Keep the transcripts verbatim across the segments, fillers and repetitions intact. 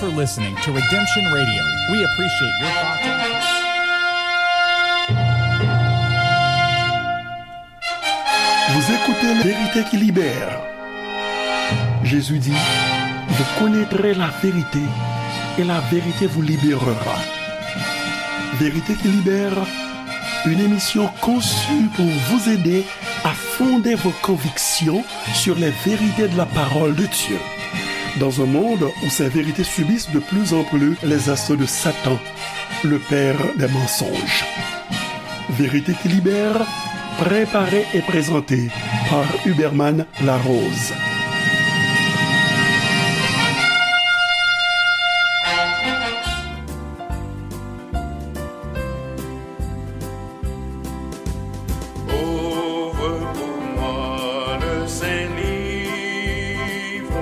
for listening to Redemption Radio. We appreciate your thoughts and Vous écoutez La Vérité qui libère. Jésus dit, vous connaîtrez la vérité et la vérité vous libérera. Vérité qui libère, une émission conçue pour vous aider à fonder vos convictions sur les vérités de la parole de Dieu. Dans un monde où ces vérités subissent de plus en plus les assauts de Satan, le père des mensonges. Vérité qui libère, préparée et présentée par Huberman Larose. Ouvre pour moi le saint livre,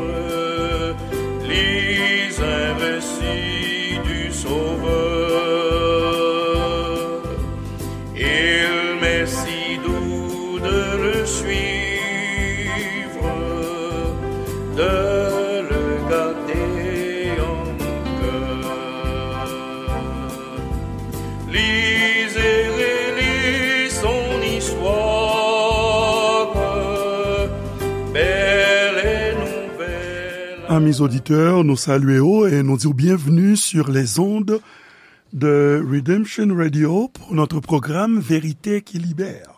lis un récit du Sauveur. Il m'est si doux de le suivre, de le garder en mon cœur. Lis et relis son histoire, belle et nouvelle. Amis auditeurs, nou salye w e nou di w byenvni sur les ondes de Redemption Radio pour notre programme Vérité qui libère.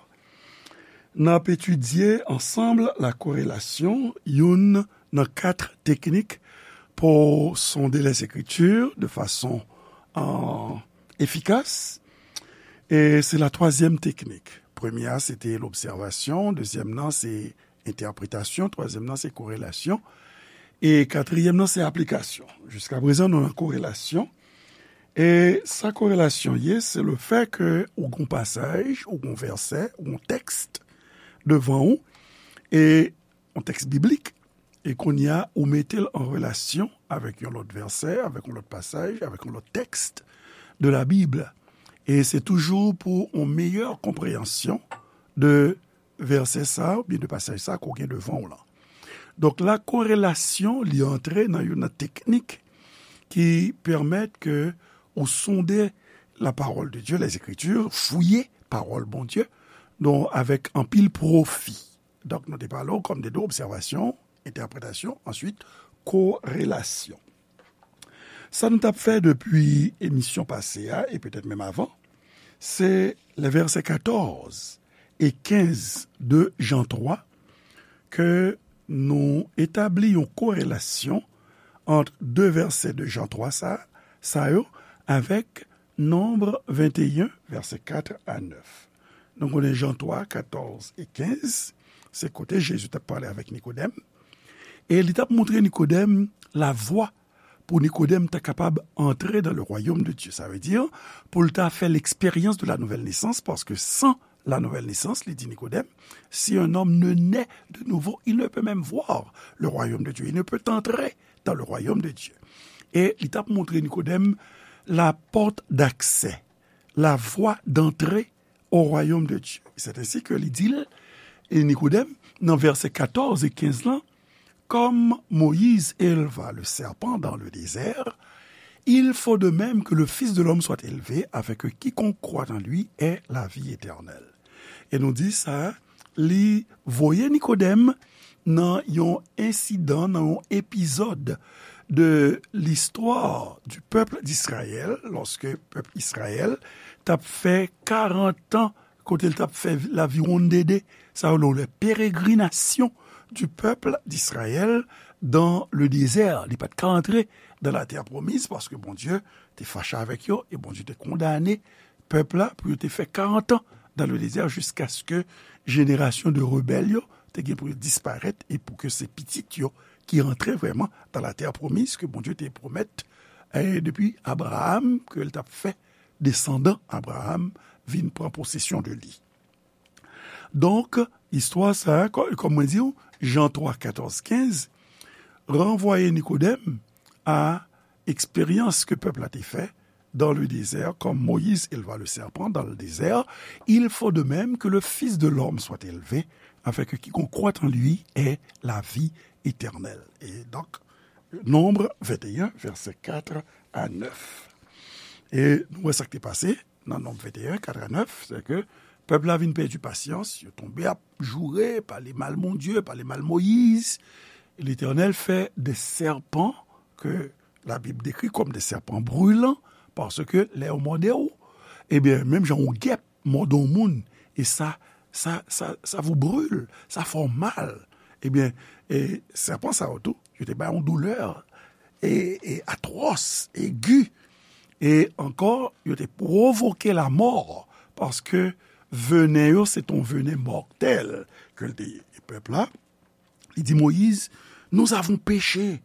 N ap etidye ansanm la korelasyon, youn nan kat teknik pou sonde Lèzekritir de fason, euh, efikas. E se la twazyèm teknik. Premye a, se te lobsèvasyon. Dezyèm nan, se entèpretasyon. Twazyèm nan, se korelasyon. E katriyèm nan, se aplikasyon. Jiskaprezan, nou nan korelasyon. E sa korelasyon ye, se le fè ke ou gon pasaj, ou gon vèsè, ou gon tèks devan ou, e yon tèks biblik, e kounye a, ou mete l an relasyon avèk yon lòt vèsè, avèk yon lòt pasaj, avèk yon lòt tèks de la Bible. E se toujou pou yon meyè konpreyansyon de vèsè sa a, oubyen de pasaj sa a ke w gen devan w lan. Donk, la korelasyon, li antre nan youn nan teknik ki pèmèt ke ou sonde la parole de Dieu, les Écritures, fouye pawòl Bondye, donk, avèk anpil pwofi. Donk, nou te pale w kòm de de obsèvasyon, entèpretasyon, answit, korelasyon. Sa nou t ap fè depi emisyon pase a, e petèt menm avan, se lè vèsè katòz e kenz de Jan twa, ke nou etabli yon korelasyon ant de vèsè de Jan twa sa, sa yo avèk Nonb venteyen, vèsè kat a nèf. Nou konnen Jan twa, katòz e kenz, se kote Jezi t ap pale avèk Nikodèm. E li t ap montre Nikodèm lavwa pou Nikodèm ta kapab antre dans le royaume de Dieu. Sa vle di, pou l ta fè l'expérience de la nouvelle naissance, paske san la nouvelle naissance, li di Nikodèm, si un homme ne naît de nouveau, il ne peut même voir le royaume de Dieu. Il ne peut entrer dans le royaume de Dieu. E li t ap montre Nikodèm la porte d'accès, la voie d'entrée au royaume de Dieu. C'est ainsi que li di l, e Nikodèm, nan vèsè katòz e kenz lan, comme Moïse éleva le serpent dans le désert, il faut de même que le Fils de l'homme soit élevé, afin que quiconque croit en lui ait la vie éternelle. E nou di sa, li voye Nikodèm nan yon ensidan, nan yon epizòd de l'histoire du peuple d'Israël, lòske pèp Izrayèl t ap fè karant an, kote l t ap fè laviwonndede, sa yo rele pérégrination du peuple d'Israël dans le désert. Li pa t ka antre dans la terre promise, paske Bondye te fache avèk yo, e Bondye te kondane pèp la pou yo te fè karant an dans le désert, jiskaske jenerasyon de rebèl yo te gen pou yo disparèt, e pou ke se pitit yo ki antre vrèman dans la terre promise ke Bondye te pwomèt, e depi Abraram, ke l t ap fè desandan Abraram vin pran posesyon de li. Donk, istwa sa a, kò-, kòm mwen di w, Jan twa, katòz, kenz, ranvwaye Nikodèm a eksperyans ke pèp la te fè dans le désert, comme Moïse éleva le serpent dans le désert, il faut de même que le Fils de l'homme soit élevé, afin que quiconque croit en lui ait la vie éternelle. E donk, Nonb venteyen, vèsè kat a nèf. E nou wè sa k te pase nan Nonb venteyen, kat a nèf, se ke pèp la vin pèdi pasyans, yo tonbe ap joure, pale mal Bondye, pale mal Moyiz. Letènèl fè de sèpan ke Labib dekri kòm de sèpan brilan, paske lè yo mòde w, ebyen, menm jan yon gèp mòde yon moun, e sa, sa, sa, sa vous brûle, sa fè w mal. Ebyen, e, sèpan sa yo tou, yo te bay yon doulè, e, e atwòs, egi, e ankò, yo te pwovoke lamò, paske venen yo, se te yon venen mòtèl ke l te ye. E pèp la, li di Moyiz, nous avons péché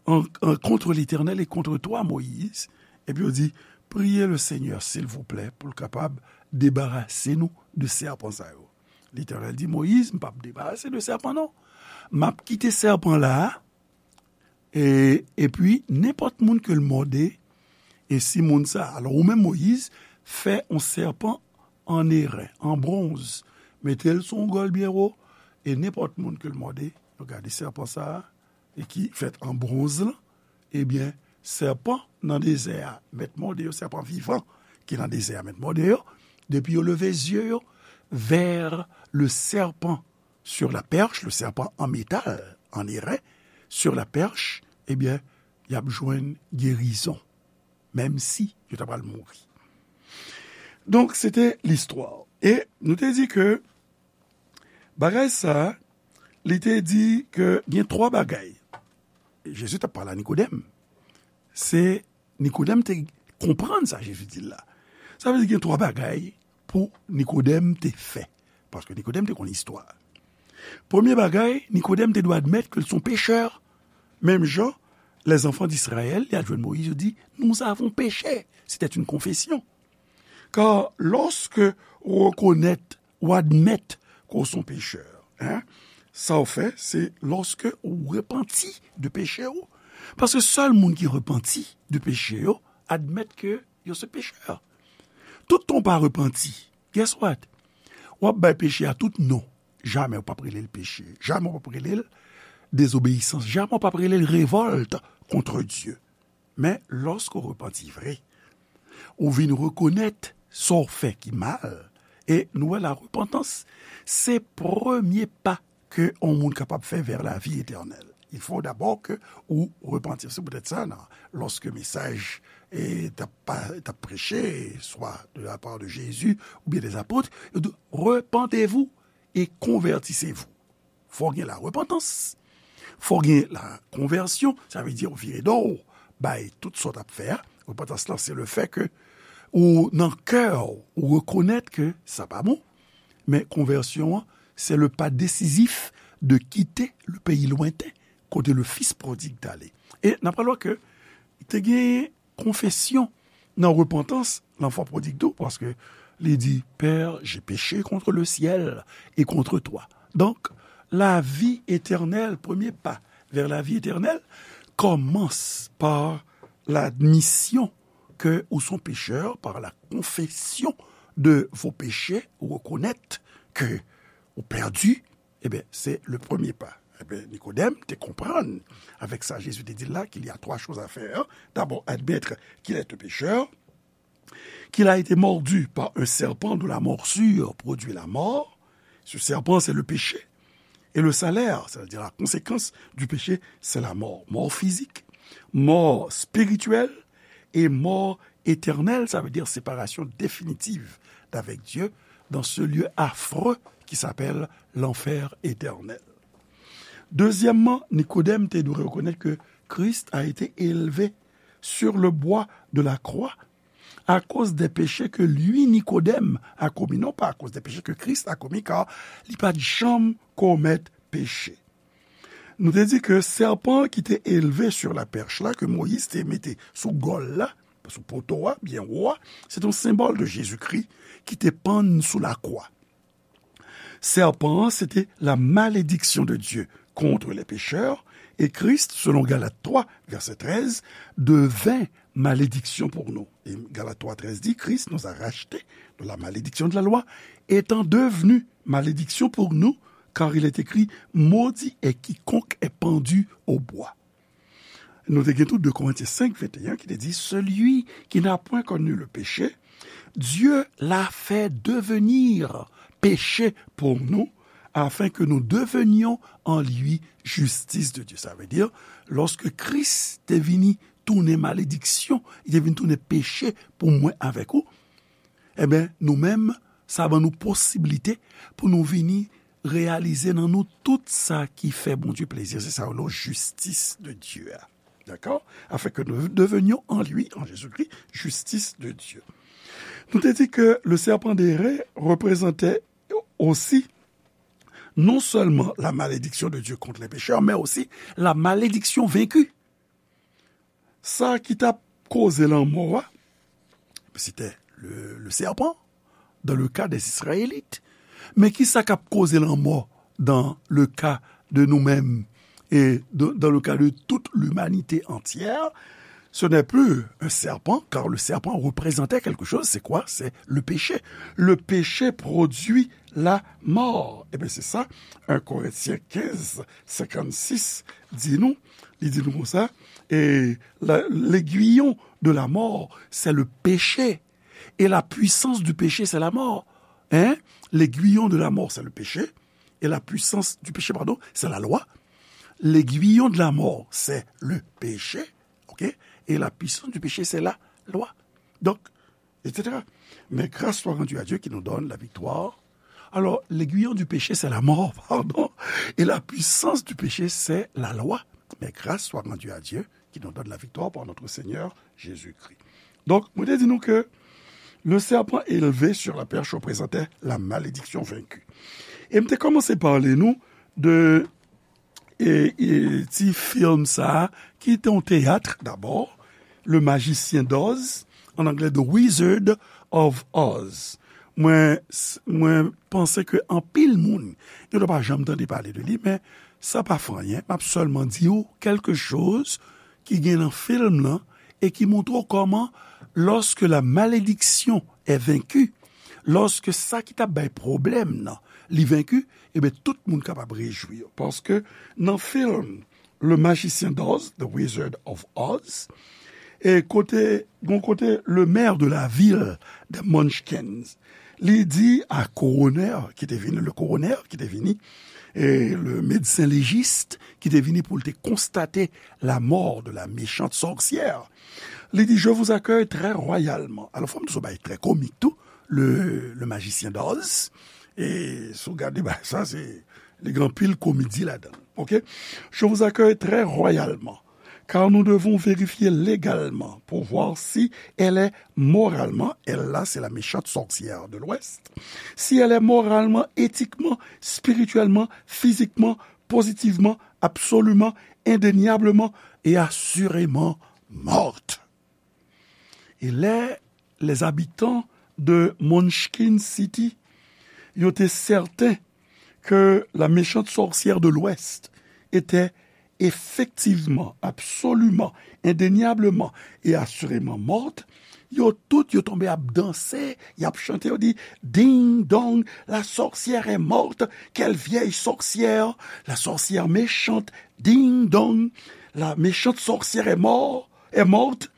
en, en, contre l'Éternel et contre toi, Moïse. Epi yo di, priye le Senyè, silvouplè, pou l kapab debarase nou de sèpan sa yo. Letènèl di Moyiz, m p ap debarase de sèpan, non. M ap kite sèpan la a, e, epi nenpòt moun ke l mòde, e si moun sa, alò ou menm Moyiz, fè yon sèpan an eren, an bwonz, mete l sou yon gòl byen wo, e nenpòt moun ke l mòde, yo gade sèpan sa a, e ki fèt an bwonz lan, ebyen, sèpan nan dezè a, mèt mòde yo, sèpan vivan ki nan dezè a, mèt mòde yo, depi yo leve zye yo vers le serpent sur la perche, le serpent en métal, en airain, sur la perche, ebyen, y ap jwenn gerizon, menm si yo ta pral mouri. Donk, se te listwa. E nou te di ke bagay sa, li te di ke gen twa bagay. Jezi t ap pale a Nikodèm. Se Nikodèm te konprann sa Jezi di l la. Sa vle di gen twa bagay pou Nikodèm te fè. Paske Nikodèm te konn istwa. Premye bagay, Nikodèm te dwe admèt ke l se yon pechè. Menm jan, les enfants d'Israël, li al jwenn Moyiz, yo di, nous avons péché. C'était une confession. Kar lòske ou rekonèt, ou admèt ke w se yon pechè, en, sa w fè, se lòske ou repanti de peche w. Paske sèl moun ki repanti de peche yo, admèt ke yo se pechè. Tout tan w pa repanti, guess what? W ap bay peche a tout non. Jamè w p ap rele l peche. Jamè w p ap rele l dezobeyisans. Jamè w p ap rele l revòlt contre Dieu. Men, lòske w repanti vre, ou vin rekonèt sa w fè ki mal, e nou wè la repantans, se premye pa ke yon moun kapab fè vers la vie éternelle. Il faut d'abord que ou repantir. Se poutèt sa, nan, lòske mesaj, e, t ap pa, t ap preche, swa de la part de Jésus oubyen des apôtres, yo di, repentez-vous et convertissez-vous. Fò gen la repantans. Fò gen la konvèsyon, sa vle di w vire do w bay tout sa w t ap fè a. Repantans lan, se le fè ke ou nan kè w, ou rekonèt ke sa pa bon. Men konvèsyon an, se le pa desizif de kite le peyi lwenten, kote le fis prodig t ale. E n ap pral wè ke te gen konfesyon nan repantans, lanfan prodig tou, paske li di, Père, j'ai péché contre le ciel et contre toi. Donk, lavi etènèl, premye pa vers la vie éternelle, kòmanse pa ladmisyon ke ou se yon pechè, par la confession de vos péchés, ou rekonèt ke ou pèdi, Ebyen, se le premye pa. Ebyen, Nikodèm te konprann, avec ça, Jésus te dit là qu'il y a trois choses à faire. D'abord, admettre qu'il est un pécheur, qu'il a été mordu par un serpent dont la morsure produit la mort. Ce serpent, c'est le péché. Et le salaire, c'est-à-dire la conséquence du péché, c'est la mort. Mort physique, mort spirituelle et mort éternelle, ça veut dire séparation définitive d'avec Dieu dans ce lieu affreux qui s'appelle l'enfer éternel. Dezyèmman, Nikodèm te dwe rekonèt ke Christ a été élevé sur le bois de la croix à cause des péchés que lui, Nikodèm, a commis, non pas à cause des péchés que Christ a commis, car li pa t janm komèt peche. Nou te di ke sèpan ki te elve sur la perche la, ke Moyiz te mete sou gòl la, sou poto a, byen wo a, se te yon senbòl de Jezikri ki te pann sou lakwa. Sèpan an, se te la malédiction de Dieu contre les pécheurs, et Christ, selon Galates trois, verset treize, devint malédiction pour nous. Et Galates trois treize dit, Christ nous a rachetés de la malédiction de la loi, étant devenu malédiction pour nous, car il est écrit, maudit est quiconque est pendu au bois. Nou te gen tou de Korentyen senk venteyen ki te di, celui qui n'a point connu le péché, Dieu l'a fait devenir péché pour nous, afin que nous devenions en lui justice de Dieu. Sa vle di, lòske Kris te vini tounen malediksyon, li te vin tounen peche pou mwen avèk ou, ebyen, nou menm, sa ban nou posiblite pou nou vini reyalize nan nou tout sa ki fè Bondye plezi. Se sa yo rele jistis de Dye a. Dakò? Afin que nous devenions en lui, en Jésus-Christ, justice de Dieu. Nou te di ke le serpent d'airain reprezante osi non seulement la malédiction de Dieu contre les pécheurs, mais aussi la malédiction vaincue. Sa ki t ap koze lanmò a, c'était le, le serpent, dans le cas des Israélites. Men ki sa k ap koze lanmò dans le cas de nous-mêmes et de, dans le cas de toute l'humanité entière? Ce n'est plus un serpent, car le serpent représentait quelque chose. C'est quoi? C'est le péché. Le péché produit la mort. Eh bien, c'est ça, un Corinthiens quinze, cinquante-six di nou, li di nou konsa, et la, l'aiguillon de la mort, c'est le péché. Et la puissance du péché, c'est la mort. Hein? L'aiguillon de la mort, c'est le péché. Et la puissance du péché, pardon, c'est la loi. L'aiguillon de la mort, c'est le péché. OK? Et la puissance du péché, c'est la loi. Donc, et cetera. Mais grâce soit rendue à Dieu qui nous donne la victoire. Alors, l'aiguillon du péché, c'est la mort, pardon. Et la puissance du péché, c'est la loi. Mais grâce soit rendue à Dieu qui nous donne la victoire par notre Seigneur Jésus-Christ. Donk, mwen te di nou ke le serpent élevé sur la perche représentait la malédiction vaincue. E m te kòmanse pale nou de e, e, ti fim sa a, ki te yon teyat dabò, Le Magicien d'Oz, an anglè The Wizard of Oz. Mwen, s-, mwen panse ke anpil moun, yo pa janm tande pale de li, men sa pa fè anyen. M ap sèlman di w quelque chose ki gen nan fim lan e ki montre w kòman, lorsque la malédiction est vaincue, lòske sa ki t ap bay pwoblèm nan, li venki, ebyen, tout moun kapab rejwi. Paske nan fim Le Magicien d'Oz, The Wizard of Oz, e kote, gon kote le maire de la ville de Munchkins, li di a koronè ki te vini, le coroner ki te vini, e le médecin légiste ki te vini pou l te konstate la mort de la méchante sorcière, li di, je vous accueille très royalement. Alò, fò m di w se yon bagay trè komik tou, le, le Magicien d'Oz. E si w gade bagay sa, se, li gen anpil komedi ladan l. OK? Je vous accueille très royalement, car nous devons vérifier légalement pour voir si elle est moralement, elle là, c'est la méchante sorcière de l'Ouest, si elle est moralement, éthiquement, spirituellement, physiquement, positivement, absolument, indéniablement et assurément morte. E lè les habitants de Munchkin City, yo te sèten ke la méchante sorcière de l'Ouest était effectivement, absolument, indéniablement et assurément morte, yo tout, yo tonbe ap danse, y ap chante, yo di, ding dong, la sorcière est morte, quelle vieille sorcière, la sorcière méchante, ding dong, la méchante sorcière est mort, est morte,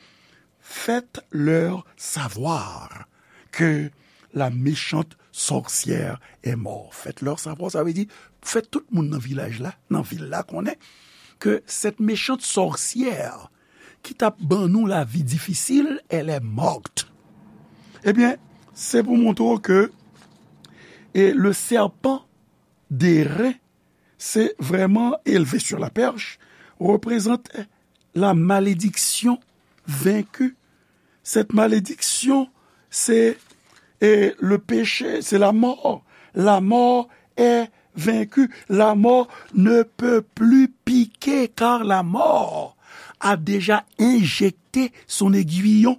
faites-leur savoir que la méchante sorcière est morte. Faites-leur savoir, sa vle di, fè tout moun nan vilaj la, nan vil la konnen ke cette méchante sorcière ki t ap ban nou lavi difisil, elle est morte. Ebyen, se pou montre w ke, e, le serpent d'airain, se vrèman élevé sur la perche, représente la malédiction vaincue. Cette malédiction, c'est, et le péché, c'est la mort. La mort est vaincue. La mort ne peut plus piquer, car la mort a déjà injecté son aiguillon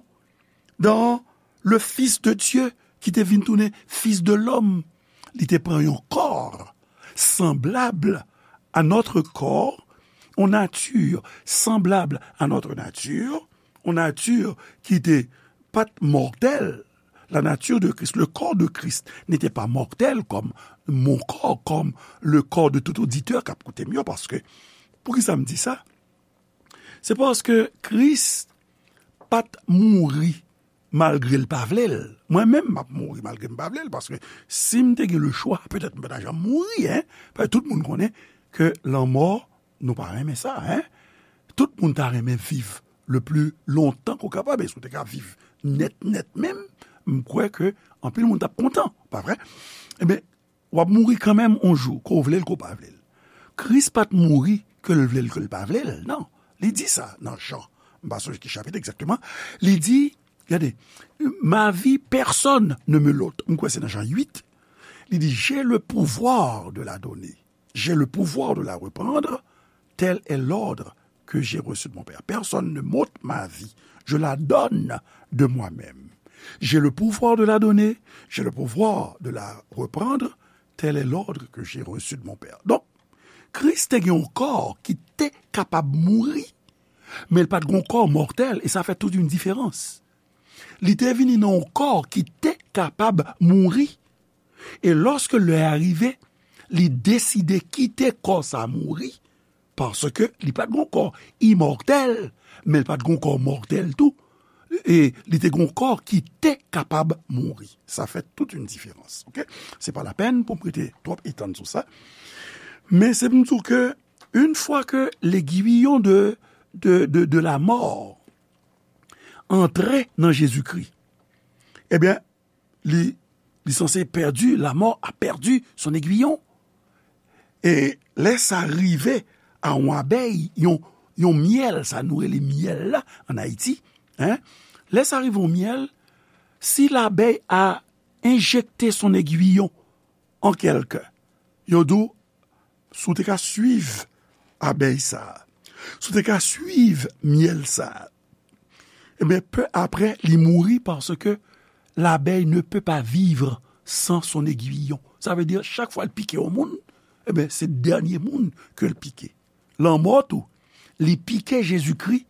dans le Fils de Dieu, ki te vin tounen Fils de l'homme. Li te pran yon kò sanblab a notre corps, yon nati sanblab a notre nature, yon nati ki te pa t mòtèl. La nature de Christ, le corps de Christ n'était pas mortel comme mon corps, comme le corps de tout auditeur k ap koute m yo, paske, poukisa m di sa? Se paske Kris pa t mouri malgre l pa vle l. Mwen menm, m ap mouri malgre m pa vle l, paske si m te gen le chwa, petèt m pa t ap janm mouri, en. Paske tout moun konnen ke lanmò, nou pa renmen sa, en. Tout moun ta renmen viv le pli lontan ke w kapab, e si w te ka viv nèt, nèt menm, m kwè ke anpil moun t ap kontan, pa vre? Ebyen, w ap mouri kanmenm yon jou, ke w vle l, ke w pa vle l. Kris pa t mouri ke l vle l, ke l pa vle l, non. Li di sa nan Jan, m pa sonje ki chapit egzakteman, li di, gade, ma vie, personne ne me l'ôte. M kwè se nan Jan uit, li di, j'ai le pouvoir de la donner. J'ai le pouvoir de la reprendre, tel est l'ordre que j'ai reçu de mon Père. Personne ne m'ôte ma vie, je la donne de moi-même. J'ai le pouvoir de la donner, j'ai le pouvoir de la reprendre, tel est l'ordre que j'ai reçu de mon Père. Donk, Kris te gen yon kò ki te kapab mouri, men l pa t gen yon kò mòtèl, e sa fè tout yon diferans. Li te vini nan yon kò ki te kapab mouri, e lòske lè a rive, li deside kite kò sa mouri, paske li pa t gen yon kò imòtèl, men li pa t gen yon kò mòtèl tou, e li te gen yon kò ki te kapab mouri. Sa fè tout yon diferans, oke? Se pa lapèn pou m rete twòp etann sou sa, men se pou m di w ke une fois que l'aiguillon de, de, de, de la mort antre nan Jezikri, ebyen, li, li sanse pèdi, la mort a perdu son aiguillon. E lè sa rive a yon abèy, yon, yon myèl, sa nou rele myèl la ann Ayiti, en, lè sa rive yon myèl, si labèy a enjekte son aiguillon an kèlken, yo di w, si w te ka swiv abèy sa a, si w te ka swiv myèl sa a, ebyen, pe aprè, li mouri paske l'abeille ne peut pas vivre sans son aiguillon. Sa vle di, chak fwa l pike yon moun, ebyen, se dènye moun ke l pike. Lanmò tou, li pike Jezikri,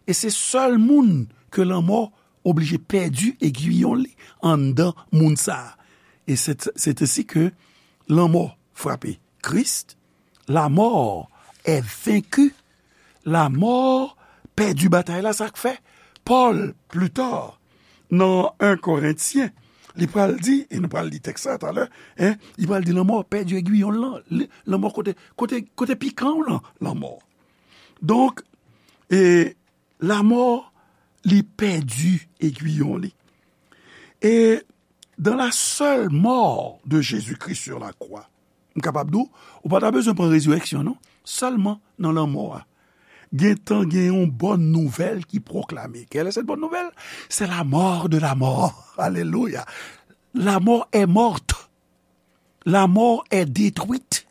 e se sèl moun ke lanmò oblije pèdi aiguillon li anndan moun sa a. E c'est, c'est ainsi que lanmò frape Kris, la mort est vaincue, la mort pèdi batay la, sa k fè Pòl, pli ta, nan en Korentyen, li pral di, e nou pral li tèks sa talè, en, li pral di lanmò pèdi aiguillon l lan, li, lanmò kote, kote, kote pikan w lan, lanmò. Donk, e, lanmò, li pèdi aiguillon li. E dans la seule mort de Jésus-Christ sur la croix, m kapab di w, ou pa ta bezwen pran rezirèksyon, non. Sèlman nan lanmò a, gentan gen yon bòn nouvèl ki pwoklame. Quelle est cette bonne nouvelle? C'est la mort de la mort. Alelouya. La mort est morte. La mort est détruite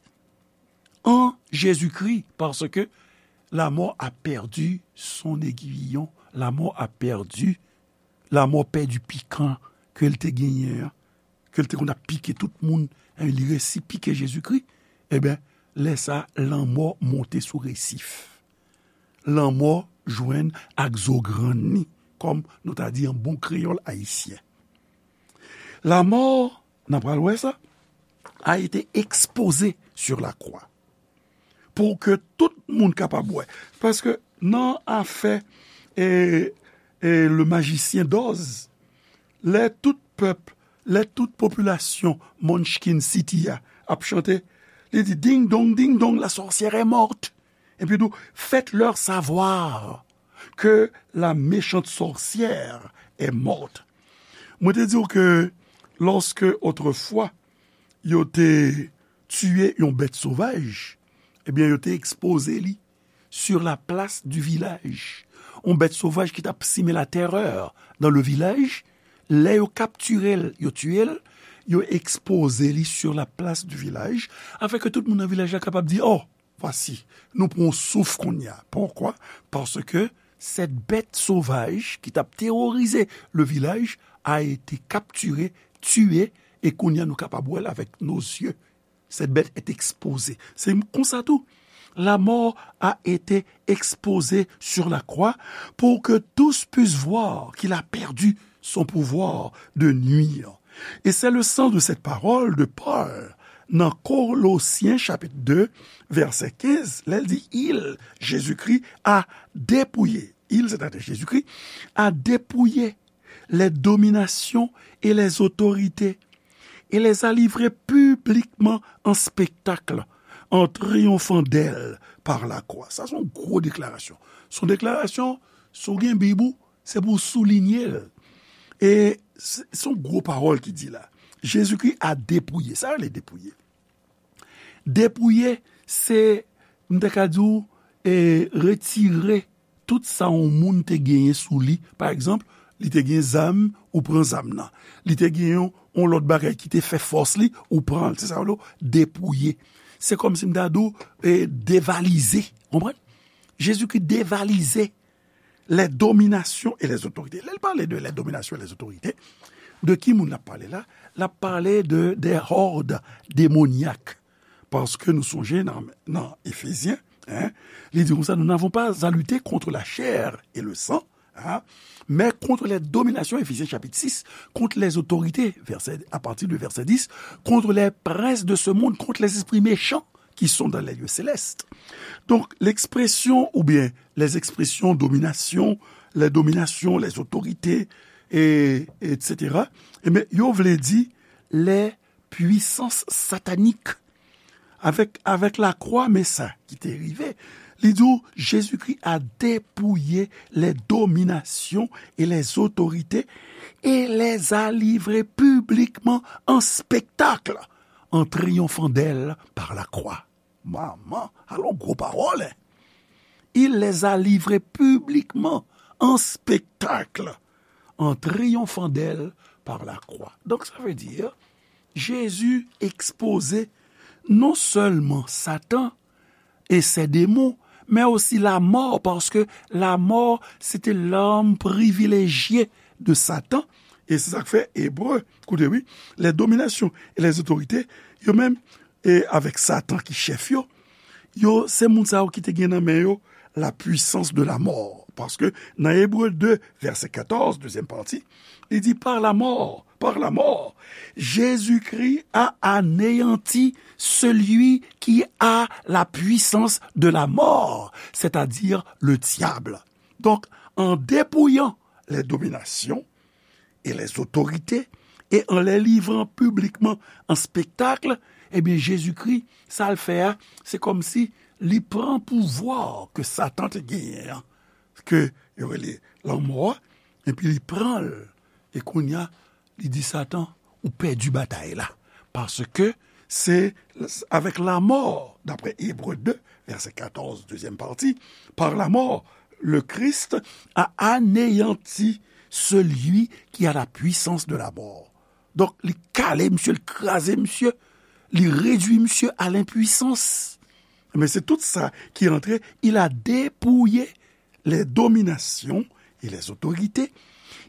en Jésus-Christ, parce que la mort a perdu son aiguillon. La mort a perdu, lanmò pèdi pikan ke l te genyen an, ke l te konn ap pike tout moun, en, li resi pike Jezikri, ebyen, lè sa, lanmò monte sou resif. Lanmò jwenn ak zo grann li, kòm nou ta di an bon kreyòl ayisyen. La mort, n a pral wè sa, a été exposée sur la croix. Pou ke tout moun kapab wè. Paske nan afè, e, e, le magicien d'Oz, lè tout pèp, lè tout popilasyon Munchkin City a ap chante, li di, ding dong, ding dong, la sorcière est morte. Epi tou, faites-leur savoir que la méchante sorcière est morte. Mwen te di w ke lòske otrefwa yo te tiye yon bèt sovaj, ebyen, yo te ekspoze li sur la place du village. Yon bèt sovaj ki t ap simen la terreur dans le village, lè yo kaptire l, yo tiye l, yo ekspoze li sur la place du village, afin ke tout moun nan vilaj la kapab di, oh, voici, nou pran yon souf kounye a. Poukwa? Paske cette bête sauvage qui t ap terroriser le village a été capturée, tuée, e kounye a nou kapab wè l avec nos yeux. Cette bête est exposée. Se konsa tou. La mort a été exposée sur la croix pour que tous puissent voir qu'il a perdu son pouvoir de nuire. Et c'est le sens de cette parole de Paul nan Kolosyen chapit de, vèsè kenz, lè l di, il, Jezikri, a depouye, il, sètadi Jezikri, a depouye les dominations et les autorités, et les a livrées publiquement en spectacle, en triomphant d'elles par la croix. Sa se yon gwo deklarasyon. Se yon deklarasyon, si w gen Bib ou, se pou w soulinye l. E se se yon gwo pawòl ki di la. Jezikri a depouye. Sa rele depouye. Depouye, se, m ta ka di w, e, retire tout sa yon moun te genyen sou li. Pa egzanp, li te gen zam, ou pran zam nan. Li te gen yon, yon lòt bagay ki te fè fòs li, ou pran l. Se sa yo rele depouye. Se kòmsi m ta di w, e, devalize. Konprann? Jezikri devalize les dominations et les autorités. Lè l pale de les dominations et les autorités, de ki moun l ap pale la? L ap pale de des hordes démoniaques. Paske nou sonje nan, nan Efezyen, hein, li di konsa, nous n'avons pas à lutter contre la chair et le sang, hein, mais contre les dominations, Éphésiens chapitre six, contre les autorités, verset, à partir de verset dix, contre les princes de ce monde, contre les esprits méchants qui sont dans les lieux célestes. Donk, lekspresyon oubyen les expressions domination, les dominations, les autorités, et, et cetera, ebyen, yo vle di les puissances sataniques. Avèk, avèk lakwa, men sa ki te rive, li di w, Jezikri a depouye les dominations et les autorités et les a livrées publiquement en spectacle, en triomphant d'elles par la croix. Manman, alò gwo pawòl, hein? Il les a livrées publiquement en spectacle, en triomphant d'elles par la croix. Donc, ça veut dire, Jésus exposait non seulement Satan et ses démons, mais aussi la mort, parce que la mort, c'était l'arme privilégiée de Satan. E se sa k fè Ebre, koute wi, les dominations et les autorités, yo menm, e avèk Satan ki chèf yo, yo, se moun sa yo ki te gen nan men yo la puissance de la mort. Paske nan Ebre de, vèsè katòz, dezyèm pati, li di, par la mort, par la mort, Jésus-Christ a anéanti celui qui a la puissance de la mort, c'est-à-dire le diable. Donc, en dépouillant les dominations et les autorités, et en les livrant publiquement en spectacle, ebyen, Jezikri, sa l fè a, se kòmsi li pran pouvwa ke Satan te genyen an, ke yo rele lanmò a, epi li pran l, e kounye a, li di Satan, ou pèdi batay la. Paske se avèk lanmò, daprè Ebre de, vèsè katòz, dezyèm pati, par la mort, le Christ a anéanti celui qui a la puissance de la mort. Donk, li kale misye, li kraze misye, li redui misye à l'impuissance. Men se tout sa ki antre, il a dépouillé les dominations et les autorités,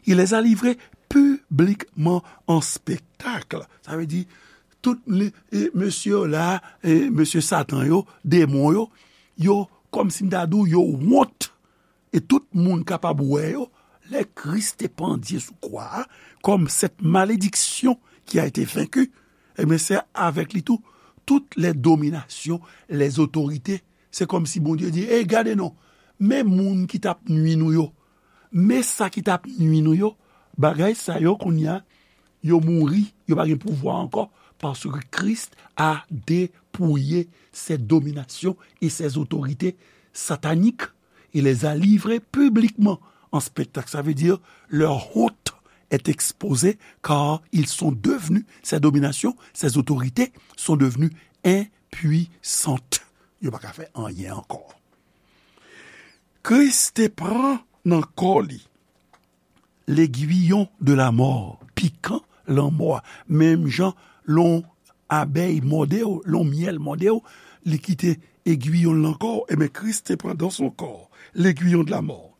il les a livrées publiquement en spectacle. Sa vle di, tout li, e, mesye yo la, e, mesye Satan yo, demon yo, yo, kòmsi m ta di w, yo wont. E tout moun kapab wè yo, lè Kris te pandye sou kwa a, comme cette malédiction qui a été vaincue, ebyen, se avèk li tou, toutes les dominations, les autorités, se kòmsi Bondye di, ey, gade non, men moun ki t ap nwi nou yo, men sa ki t ap nwi nou yo, bagay sa yo kounye a, yo mouri, yo pa gen pouvwa ankò, parce que Christ a dépouillé ces dominations et ces autorités sataniques. Il les a livrés publiquement en spectacle. Ça veut dire, leur honte est exposée, car ils sont devenus, ces dominations, ces autorités sont devenues impuissantes. Yo pa ka fè anyen ankò. Kris te pran nan kò li l'aiguillon de la mort, pikan lanmò a, menm jan lè yon abèy mòde w, lè yon myèl mòde w, li kite egwiyon l nan kò w, ebyen, Kris te pran dans son corps l'aiguillon de la mort.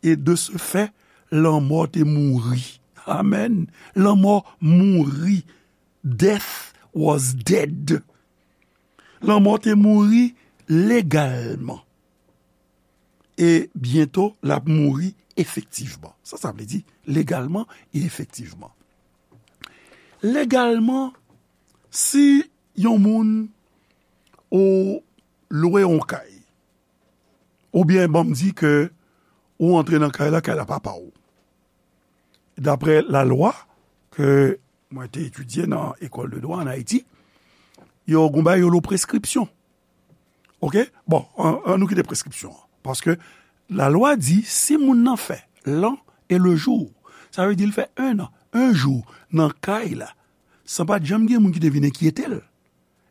Et de ce fait, lanmò te mouri. Amèn. Lanmò mouri. Death was dead. Lanmò te mouri legalman. E byento, l ap mouri efektivman. Sa, sa vle di legalman e efektivman. Legalman, si yon moun, ou lwe yon kay, oubyen ban m di ke ou antre nan kay la, kay la pa pa w. Daprè lalwa ke mwen te etidye nan ekòl de dwa ann Ayiti, yo gon bagay yo lo preskripsyon. Oke? Bon, an, an nou kite preskripsyon an. Paske lalwa di, si moun nan fè l'an et le jour, sa vle di l fè un an, un jou nan kay la, san pa t janm gen moun ki te vin enkyete l,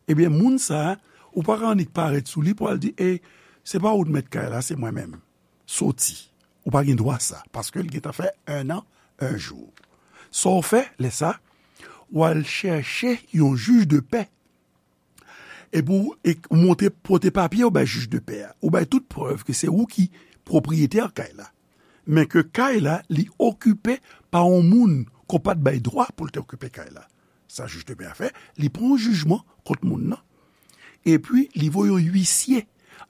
ebyen, moun sa a, ou pa ka annik parèt sou li pou al di, e, se pa ou t mèt kay la, se mwen menm. Soti. Ou pa gen dwa sa, paske l gentan fè un an, un jou. Sa w fè, lè sa, w al chèche yon jij de pè. Epi w, e, ou montre, pote papye, ou bay jij de pè a. Ou bay tout prèv ke se ou ki pwopriyetè kay la. Men ke kay la, li okipe pa yon moun ke w pa t bay dwa pou l te okipe kay la. Sa jij de pè a fè, li pran yon jijman kont moun nan. Epi, li voye yon uisye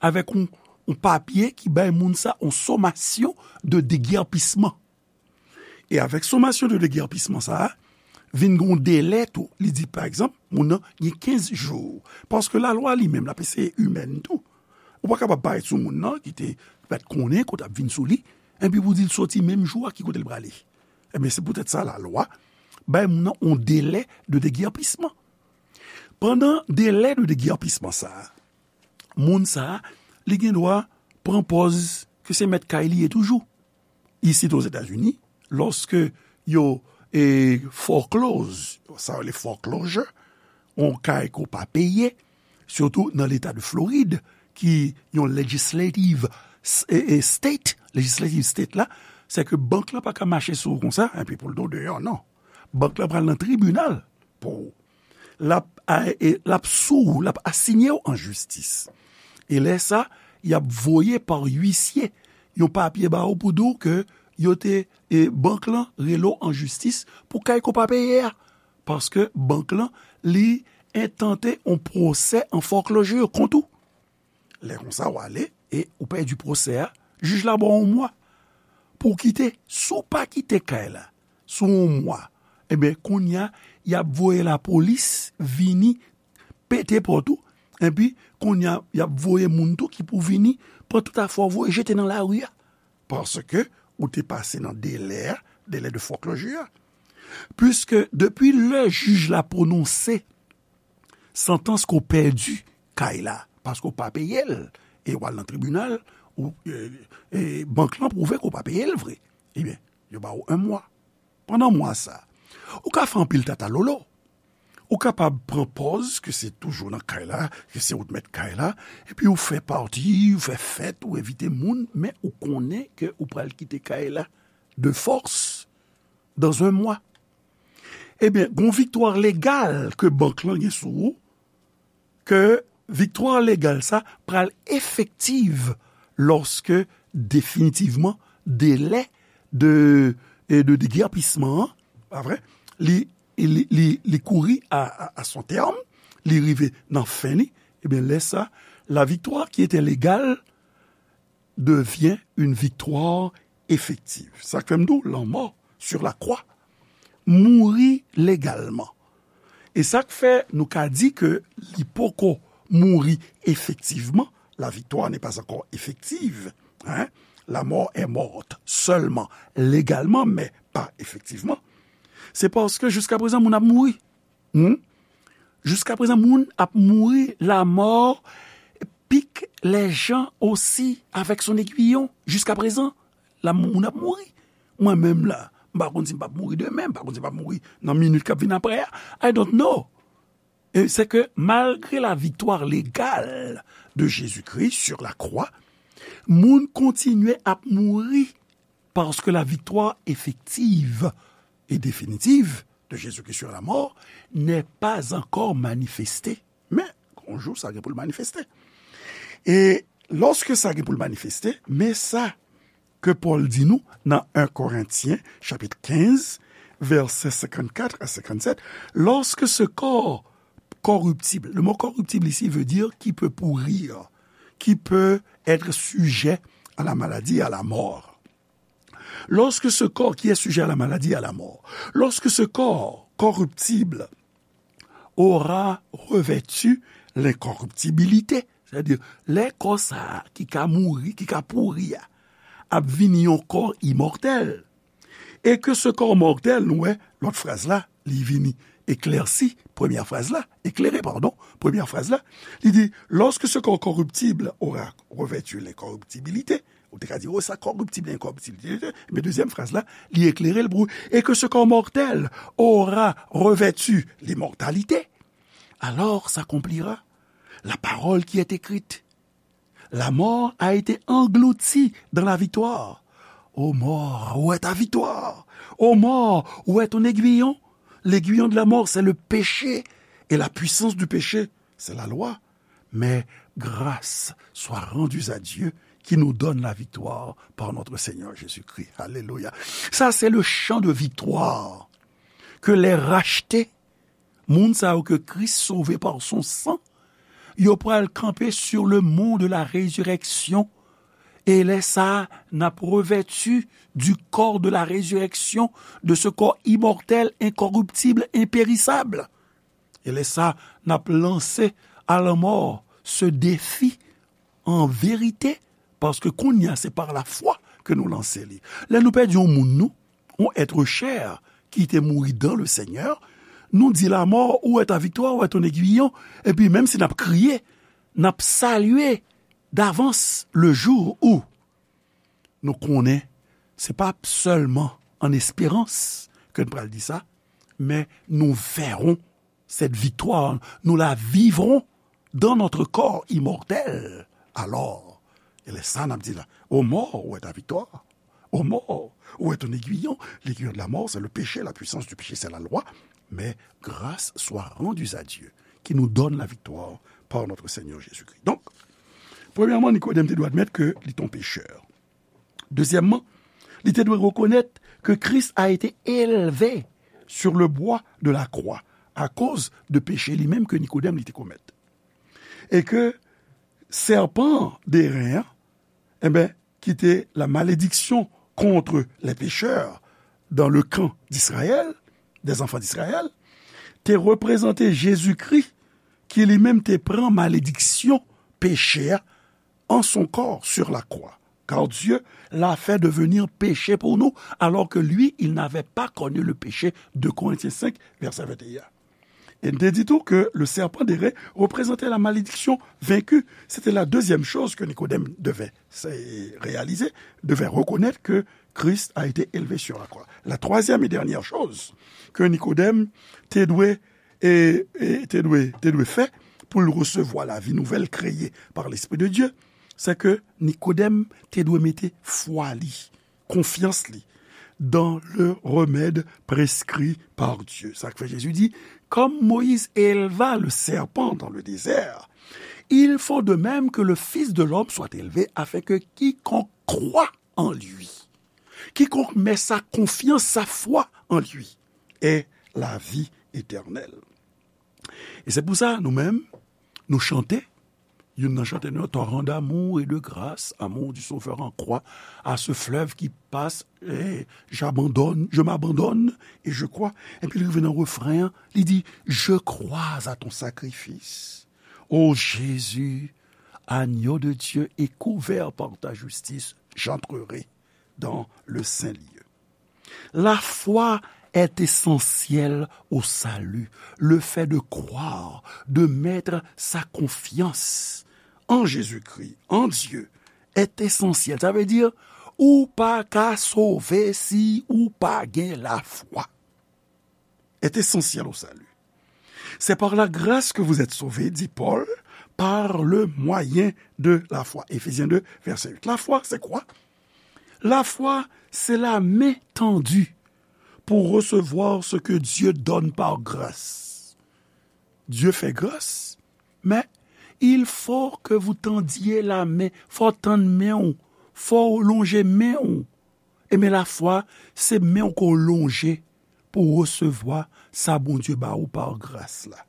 avèk yon, yon papye ki bay moun sa yon somasyon de degèpisman. E avèk somasyon de degèpisman sa a, vin gon delè tou. Li di, pa egzanp, moun nan gen kenz jou. Paske lalwa li menm, l ap eseye imèn tou. Ou pa kapab parèt sou moun nan ki te pa t konnen kote ap vin sou li, epi pou di l soti menm jou a ki kote l prale. Ebyen, se poutèt sa lalwa bay moun nan yon delè de degèpisman. Pandan delè de degèpisman sa a, moun sa a, li gen dwa pran pòz ke se mèt kay li ye toujou. Isit Ozetazini, lòske yo, e, foreclose, sa yo rele foreclosure, yon kay ke w pa peye, sitou nan leta de Florid, ki yon legislative s-, e, e, state, legislative state la, se ke bank lan pa ka mache sou ou konsa, epi pou l di w deyò, non. Bank lan pral nan tribinal pou ou. L ap, a, e, l ap sou ou, l ap asinye w an jistis. E lè sa, y ap voye pa uisye yon papye ba ou pou di w ke yo te, e, bank lan rele w an jistis pou kay ke w pa peye a. Paske bank lan, li entante yon pwosè an foreclosure kont ou. Lè konsa, w ale e ou pèdi pwosè a, jij la ba w yon mwa pou w kite. Si w pa kite kay la sou yon mwa, ebyen, kounye a, y ap voye lapolis vini pete pòt ou, epi kounye a, y ap voye moun tou ki pou vini pran tout afè w voye jete nan lari a. Paske ou te pase nan delè a, délai de foreclosure a. Piske depi lè jij la pwononse santans ke w pèdi kay la, paske w pa peye l, e w al nan tribinal, ou, e, e bank lan pwouve ke w pa peye l vre. Ebyen, yo ba w yon mwa. Pandan mwa sa, ou ka fè anpil tatalolo. Ou kapab pran pòz ke se toujou nan kay la, ke se ou t mèt kay la, epi ou fè pati, ou fè fèt, ou envite moun, men ou konnen ke ou pral kite kay la de fòs dans un mois. Ebyen, gon viktwa legal ke bank lan gen sou ou, ke viktwa legal sa pral efektiv lòske definitivman delè de, e de degèpisman an, pa vre, li, li, li, li kouri a, a, a son tèm, li rive nan fen li, ebyen, lè sa, la victoire qui était légale devient une victoire effective. Sa k fè m di w, lanmò sur la croix, mouri legalman. E sa k fè nou ka di ke li poko mouri efektivman, la victoire n'est pas encore effective, hein? La mort est morte seulement légalement, mais pas effectivement. Se paske jiskaprezan moun ap mouri. Hmm? Jiskaprezan moun ap mouri, la mort pique les gens aussi avec son aiguillon. Jiskaprezan, la moun ap mouri. Mwen menm la, m pa konn si m p ap mouri demen, m pa konn si m p ap mouri nan minit k ap vin apre a. I don't know. E se ke malgre la victoire légale de Jésus-Christ sur la croix, moun kontinye ap mouri paske la victoire effective et définitive de Jésus-Christ sur la mort n'est pas encore manifestée. Men, yon jou, sa gen pou l manifeste. E lòske sa gen pou l manifeste, men sa ke Pòl di nou nan en Korentyen, chapit kenz, vèsè senkannkat a senkannsèt, lorsque ce corps corruptible, le mot corruptible ici veut dire qui peut pourrir, qui peut être sujet à la maladie, à la mort. Lorsque ce corps qui est sujet à la maladie, à la mort, lorsque ce corps corruptible aura revêtu l'incorruptibilité. Sètadi, lè kò sa a ki ka mouri, ki ka pouri a, ap vini yon kò imòtèl, et que ce corps mortel, nou wè, lòt fraz la, li vini eklèsi, premyè fraz la, éclairé, pardon, premyè fraz la, li di, lorsque ce corps corruptible aura revêtu l'incorruptibilité, ou te ka di, oh, sa corruptible, incorruptibilité, men dezyèm fraz la, li eklere l pou, et que ce corps mortel aura revêtu l'immortalité, alors s'accomplira la parole qui est écrite. La mort a été engloutie dans la victoire. Ô mort, où est ta victoire? Ô mort, où est ton aiguillon? L'aiguillon de la mort, c'est le péché. Et la puissance du péché, c'est la loi. Mais grâce soit rendue à Dieu qui nous donne la victoire par notre Seigneur Jésus-Christ. Alléluia. Ça, c'est le chant de victoire que les rachetés, moun sa yo ke Kris sove par son sang, yo pral kanpe sur le mont de la résurrection. E lè sa a, n ap revèti du corps de la résurrection, de ce corps immortel, incorruptible, impérissable. E lè sa a, n ap lanse à la mort ce défi en vérité, paske kounye a se par la foi ke nou lanse li. Lè nou pèdi yon moun nou, yon être cher ki te mouri dans le Seigneur, nou di la mort, où est ta victoire, où est ton aiguillon? Epi menm si n ap kriye, n ap salye davans le jour où nou konnen se pa sèlman an esperans ke n pral di sa, men nous verrons cette victoire, nous la vivrons dans notre corps immortel. Alors, e lè sa n ap di la, ô mort, où est ta victoire? Ô mort, où est ton aiguillon? L'aiguillon de la mort, c'est le péché, la puissance du péché, c'est la loi. Mais grâce soit rendue à Dieu, qui nous donne la victoire par notre Seigneur Jésus-Christ. Donk, premyèman, Nikodèm te dwe admèt ke li te yon pechè. Dezyèmman, li te dwe rekonèt ke Christ a été élevé sur le bois de la croix akoz de peche li menm ke Nikodèm li te komèt. E ke sèpan de ren an, enben, ki te la malédiction contre les pécheurs dans le camp d'Israël, des enfants d'Israël, te reprezante Jezikri ki li menm te pran malediksyon peche a en son corps sur la croix, car Dieu l'a fait devenir péché pour nous, alors que lui, il n'avait pas connu le péché, deux Corinthiens cinq, verset vingt et un. E n te di tou ke le serpent d'airain représentait la malédiction vaincue. Se te la dezyèm choz ke Nikodèm devait se réaliser, devait reconnaître que Christ a été élevé sur la croix. La troisième et dernière chose que Nikodèm te dwe, e, e, te dwe, te dwe fè pou l resevwa lavi nouvèl kreye par l'Esprit de Dieu, se ke Nikodèm te dwe mete fwa li, konfyans li dans le remède prescrit par Dieu. Sa k fè Jezi di, comme Moïse éleva le serpent dans le désert, il faut de même que le Fils de l'homme soit élevé, afin que quiconque croit en lui, quiconque met sa confiance, sa foi en lui, ait la vie éternelle. E se pou sa, nou menm, nou chante, youn nan chante nou, torrent d'amour et de grâce, amour du Sauveur en croix, à ce fleuve qui passe, eh, j'abandonne, je m'abandonne et je crois. Epi li rive nan refren an, li di, je crois à ton sacrifice. Ô Jésus, agneau de Dieu et couvert par ta justice, j'entrerai dans le saint lieu. La foi est essentielle au salut. Le fait de croire, de mettre sa confiance en Jésus-Christ, en Dieu, est essentiel. Sa vle di, ou pa ka sove si ou pa gen lafwa. Est essentiel au salut. C'est par la grâce que vous êtes sauvés, dit Paul, par le moyen de la foi. Éphésiens deux, verset huit. La foi, c'est quoi? La foi, c'est la main tendue pour recevoir ce que Dieu donne par grâce. Dieu fait grâce, mais il faut que vous tendiez la main. Fò w tann men w. Fò w lonje men w. Ebyen, lafwa, se men w ke w lonje pou w resevwa sa Bondye ba ou pa gras la.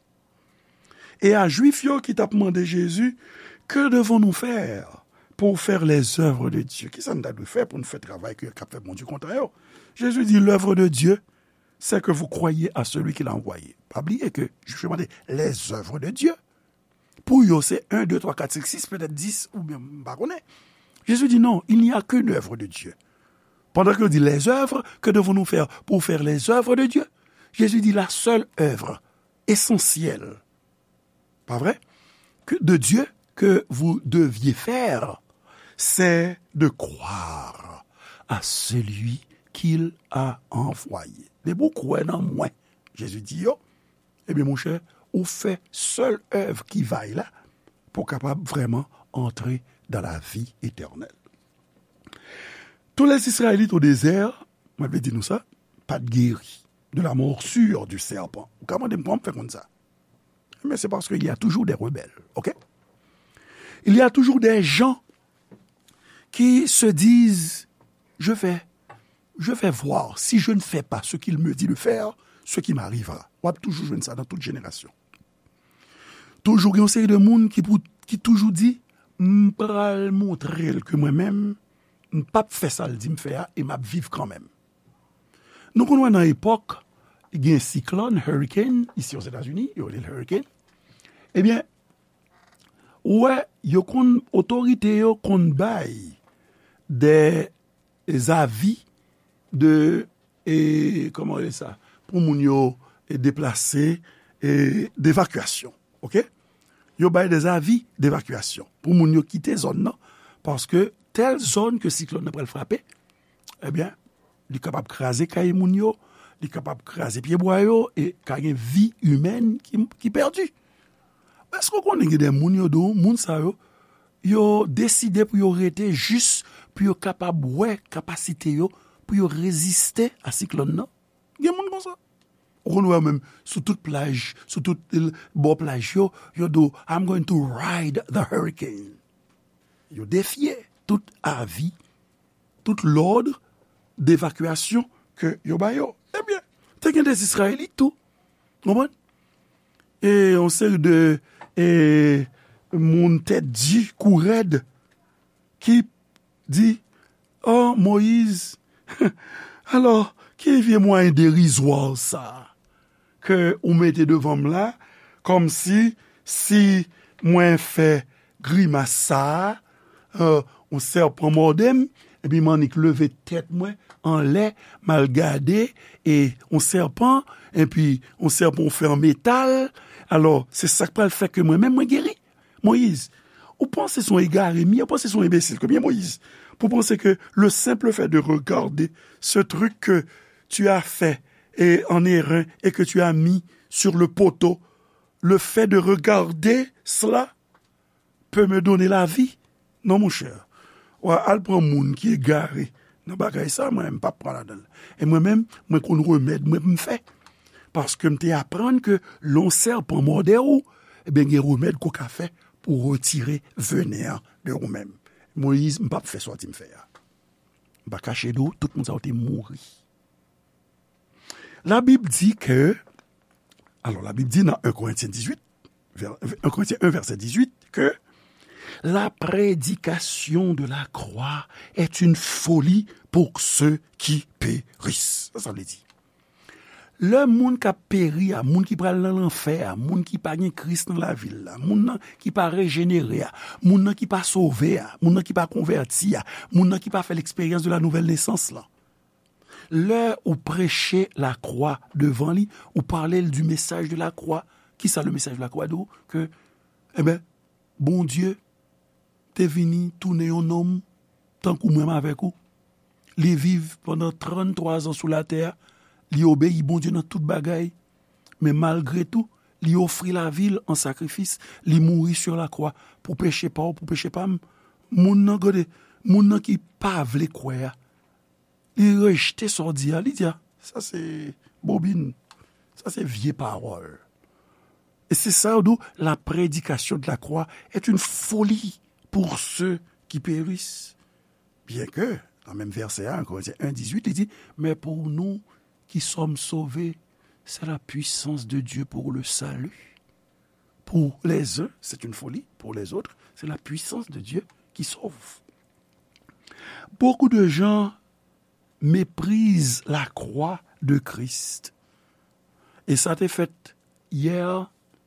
E a Jwif yo ki t ap mande Jezi, que devons-nous faire pour faire les œuvres de Dieu? Kisa n ta dwe fè pou n fè travay ke, k ap fè Bondye kontan yo? Jezi di, l'œuvre de Dieu, c'est que vous croyez à celui qu'il a envoyé. Pa bliye ke, jisman, les œuvres de Dieu, pou yo, se en, de, twa, kat, senk, sis, petèt dis, oubyen, m pa konnen. Jésus dit non, il n'y a qu'une œuvre de Dieu. Pendant que dit les œuvres, que devons-nous faire pour faire les œuvres de Dieu? Jésus dit la seule œuvre essentielle, pas vrai? Que, de Dieu que vous deviez faire, c'est de croire à celui qu'il a envoyé. Depi w kwè nan mwen, Jezi di yo, ebyen, monchè, ou fè sèl èv ki vay la pou w kapab vrèman antre dans la vie éternelle. Tous les Israélites au désert, mwen vle di nou sa, pa t geri de la morsure du serpent. Ou ka mande m kòman m fè konn sa? Mais c'est parce qu'il y a toujours des rebelles, ok? Il y a toujours des gens qui se disent, je vais, je vais voir, si je ne fais pas ce qu'il me dit de faire, ce qui m'arrivera. W ap toujou jwenn sa nan tout jenerasyon. Toujou gen yon seri de moun ki, pou, ki toujou di, m pral montre l ke mwen menm, m p ap fè sa l di m fè a e m ap viv kanmenm. Nou konn wè nan epòk, gen siklòn, hurricane, isi Ozetazini, yo rele l hurricane. Ebyen, ou wè, yo konn, otorite yo konn bay de zavi de, e, kòman rele sa, pou moun yo, e, deplase, e, devakyasyon, ok? Yo bay de zavi devakyasyon pou moun yo kite zòn nan, paske tèl zòn ke siklòn nan pral frape, ebyen, li kapab kraze kay moun yo, li kapab kraze pyebwa yo, e ka gen vi imèn ki, ki pèdi. Èske w konnen gen de moun yo di w, moun sa yo, yo deside pou yo rete jis pou yo kapab wè kapasite yo pou yo reziste a siklòn nan? Gen moun konsa. Ou konn wè menm sou tout plaj, sou tout, l-, bò plaj yo, yo di w, I'm going to ride the hurricane. Yo defye tout avi, tout lòd devakyasyon ke yo ba yo. Ebyen, te gen de Izrayelit tou. Konprann? E yon seri de, e, moun tèt di, kou rèd, ki di, oh, Moyiz, alò, ki vye mwayen derizwa sa ke ou mete devan m la, kòmsi si mwen fè grimas sa a, euh, yon sèpan mòde m, epi m annik leve tèt mwen anlè, m al gade, e yon sèpan, epi yon sèpan ou fè an metal, alò, se sa k pral fè ke mwen menm mwen geri? Moyiz, ou panse se yon egare m ye, ou panse se yon enbesil ke m ye, Moyiz, pou panse ke le simple fait de regarder ce truc que tu as fait et en airain et que tu as mis sur le poteau, le fait de regarder cela peut me donner la vie? Non, monchè. Wa al pran moun ki egare nan bagay sa, mwen, m p ap pran ladan l. E mwen menm, mwen konn remèd mwen pou m fè. Paske m te aprann ke lè yon sèpan mòde w, ebyen, gen remèd ke w ka fè pou retire venin an de ou menm. Moyiz, m p ap fè sa w di m fè a. M pa kache di w, tout moun sa yo te mouri. Labib di ke, alò, Labib di nan en Korentyen dizuit, vè-, en Korentyen en, vèsè dizuit, ke la prédication de la croix est une folie pour ceux qui périssent. Sa sa vle di? Lè moun k ap peri a, moun ki pral nan lanfè a, moun ki pa gen Kris nan lavi l la, moun nan ki pa rejenere a, moun nan ki pa sove a, moun nan ki pa konvèti a, moun nan ki pa fè l'expérience de la nouvelle naissance lan. Lè ou preche lakwa devan li, ou pale l du message de la croix, ki sa le message de la croix di w? Ke, enben, Bondye te vini tounen yon nonm tankou mwen menm avèk ou. Li viv pandan tranntwa zan sou latè a. Li obeyi Bondye nan tout bagay. Men malgre tou, li ofri lavi l an sakrifis. Li mouri sur la croix pou peche pa w, pou peche pa m. Moun nan, gade, moun nan ki pa vle kwè a, li rejte sa w di a, li di a, sa se bobin, sa se vye pawòl. E se sa yo di w, la prédication de la croix est une folie pour ceux qui périssent. Byenke, nan menm vèsè a, en Korentyen en dizuit, li di, mais pour nous qui sommes sauvés, c'est la puissance de Dieu pour le salut. Pour les uns, c'est une folie, pour les autres, c'est la puissance de Dieu qui sauve. Beaucoup de gens méprisent la croix de Christ. E sa te fèt yè,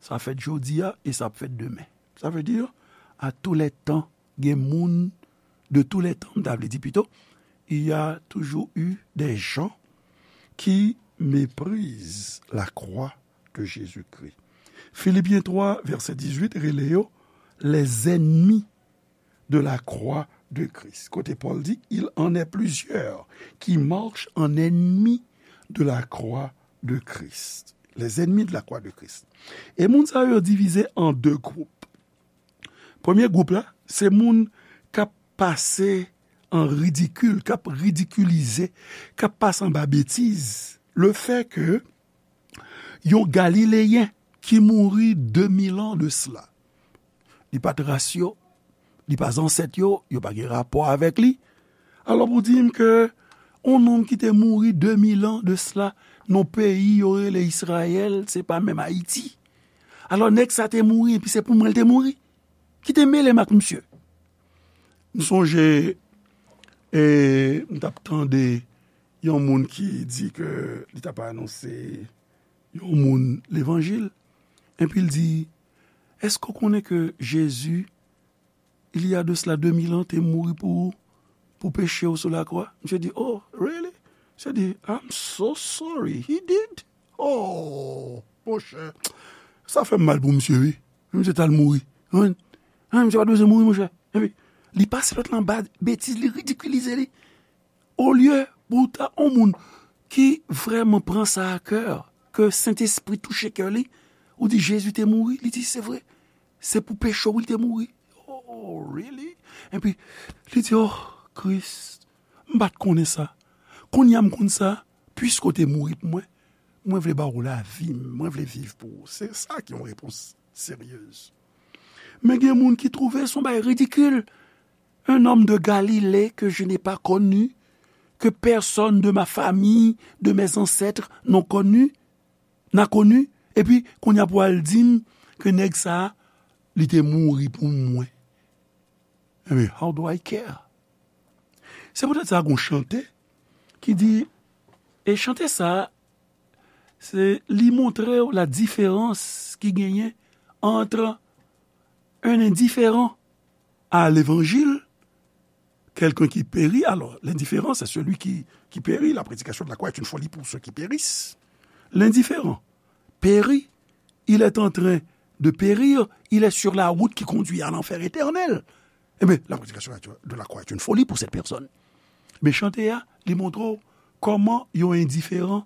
sa fèt jodi a, e sa ap fèt demen. Ça veut dire, à tous les temps, gen moun, de tous les temps, m ta vle di pito, il y a toujours eu des gens qui méprisent la croix de Jésus-Christ. Philippiens trois, verset dix-huit, rele yo les ennemis de la croix de Christ. Kote Pòl di, il en est plusieurs qui marchent en ennemis de la croix de Christ. Les ennemis de la croix de Christ. E moun sa yo divize an de gwoup. Premye gwoup la, se moun k ap pase an ridikil, k ap ridikilize, k ap pase anba betiz, le fait que yon Galileyen ki mouri de mil an de sila. Li pa t ras yo, li pa zansèt yo, yo pa gen rapò avèk li. Alò pou di m ke yon nonm ki te mouri de mil an de sila, nan peyi yo rele Izrayèl, se pa menm Ayiti. Alò nèg sa te mouri, epi se pou mwen l te mouri. Ki te mele m ak misye? M sonje, e, m t ap tande yon moun ki di ke li t ap anonse yon moun levanjil. Epi l di, èske w konnen ke Jezi, il y a de cela deux mille ans, te mouri pou, pou peche w sou lakwa? Misye di, oh, really? Misye di, I'm so sorry, he did. Oh, monchè, sa fè m mal pou misye, wi. Misye t al mouri. Wi. An, misye pa t bezwen mouri, monchè. Epi, li pase lòt lan ba betiz, li ridikilize li. Olye pou ta yon moun ki vrèman pran sa a kè, ke Sentespri touche kè li, ou di Jezi te mouri, li di se vre, se pou peche w li te mouri. Oh, really? Epi, li di, oh, Kris, m pa t konnen sa. Kounye a m konn sa, piske w te mouri pou mwen, mwen vle ba w lavi m, mwen vle viv pou ou. Se sa ki yon repons seryez. Men gen moun ki twouve se yon bagay ridikil. Un homme de Galilée que je n'ai pas connu, que personne de ma famille, de mes ancêtres n'ont connu, n'a connu, epi kounye a pou al di m ke nèg sa a, li te mouri pou mwen. Ebyen, how do I care? Se poutèt sa gon chante ki di, e chante sa a, se li montre w la diferans ki genyen entre un indifférent à l'évangile, quelqu'un qui périt. Alors, l'indifférent, c'est celui qui, qui périt. La prédication de la croix est une folie pour ceux qui périssent. L'indifférent périt, il est en train de périr, il est sur la route qui conduit à l'enfer éternel. Eh bien, la prédication de la croix est une folie pour cette personne. Men chante a, li montre w kòman yon endiferan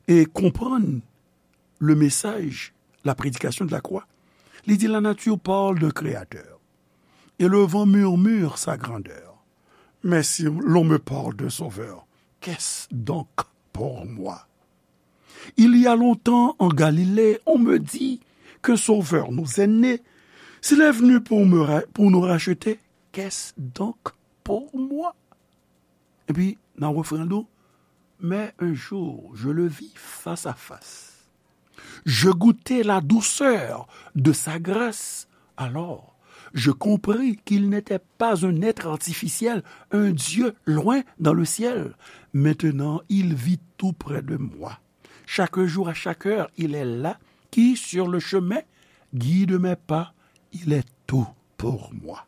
e konprann le message, la prédication de la croix. Li di, la nature parle d'un créateur, et le vent murmure sa grandeur. Mais si l'on me parle d'un sauveur, qu'est-ce donc pour moi? Il y a longtemps en Galilée, on me dit qu'un sauveur nous est né. S'il est venu pour, me ra- pour nous racheter, qu'est-ce donc pour moi? Epi, nan refren l, mais un jour, je le vis face à face. Je goûtai la douceur de sa grâce. Alors, je compris qu'il n'était pas un être artificiel, un Dieu loin dans le ciel. Maintenant, il vit tout près de moi. Chaque jour, à chaque heure, il est là, qui sur le chemin guide mes pas. Il est tout pour moi.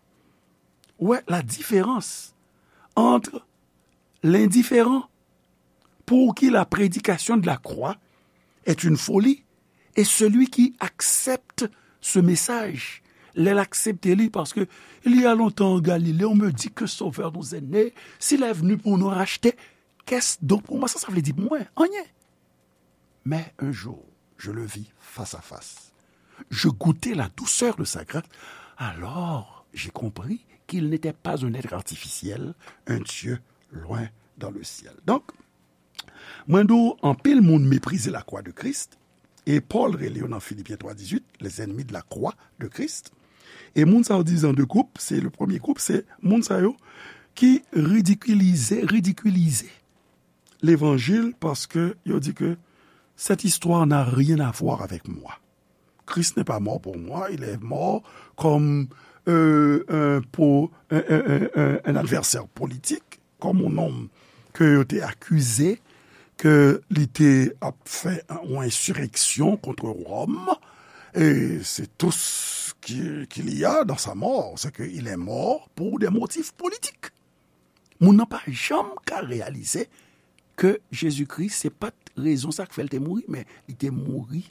Ouais, la différence entre l'indifférent, pour qui la prédication de la croix est une folie, et celui qui accepte ce message, lè l aksepte li, paske il y a longtemps en Galilée, on me dit que Sauveur nous est né, s'il est venu pour nous racheter, qu'est-ce donc pour moi? Sa, sa vle di pou mwen, anyen. Mais un jour, je le vis face à face. Je goûtai la douceur de sa grâce. Alors, j'ai compris qu'il n'était pas un être artificiel, un Dieu loin dans le ciel. Donk, mwen di w, anpil moun meprize lakwa de Kris, e Pòl rele yo nan Filipyen twa dizuit, les ennemis de la croix de Christ. E moun sa yo divize an de gwoup, se le premye gwoup, se moun sa yo ki ridikilize, ridikilize levanjil, paske yo di ke cette histoire n'a rien à voir avec moi. Christ n'est pas mort pour moi, il est mort comme euh, un, pour un, un, un, un, un adversaire politique, comme un homme ke yo te akize ke li te ap fè yon ensireksyon kont Wòm, et c'est tout ce qui, qu'il y a dans sa mort, c'est qu'il est mort pour des motifs politiques. Moun nan pa janm ka reyalize ke Jezikri se pa t rezon sa k fè l te mouri, men li te mouri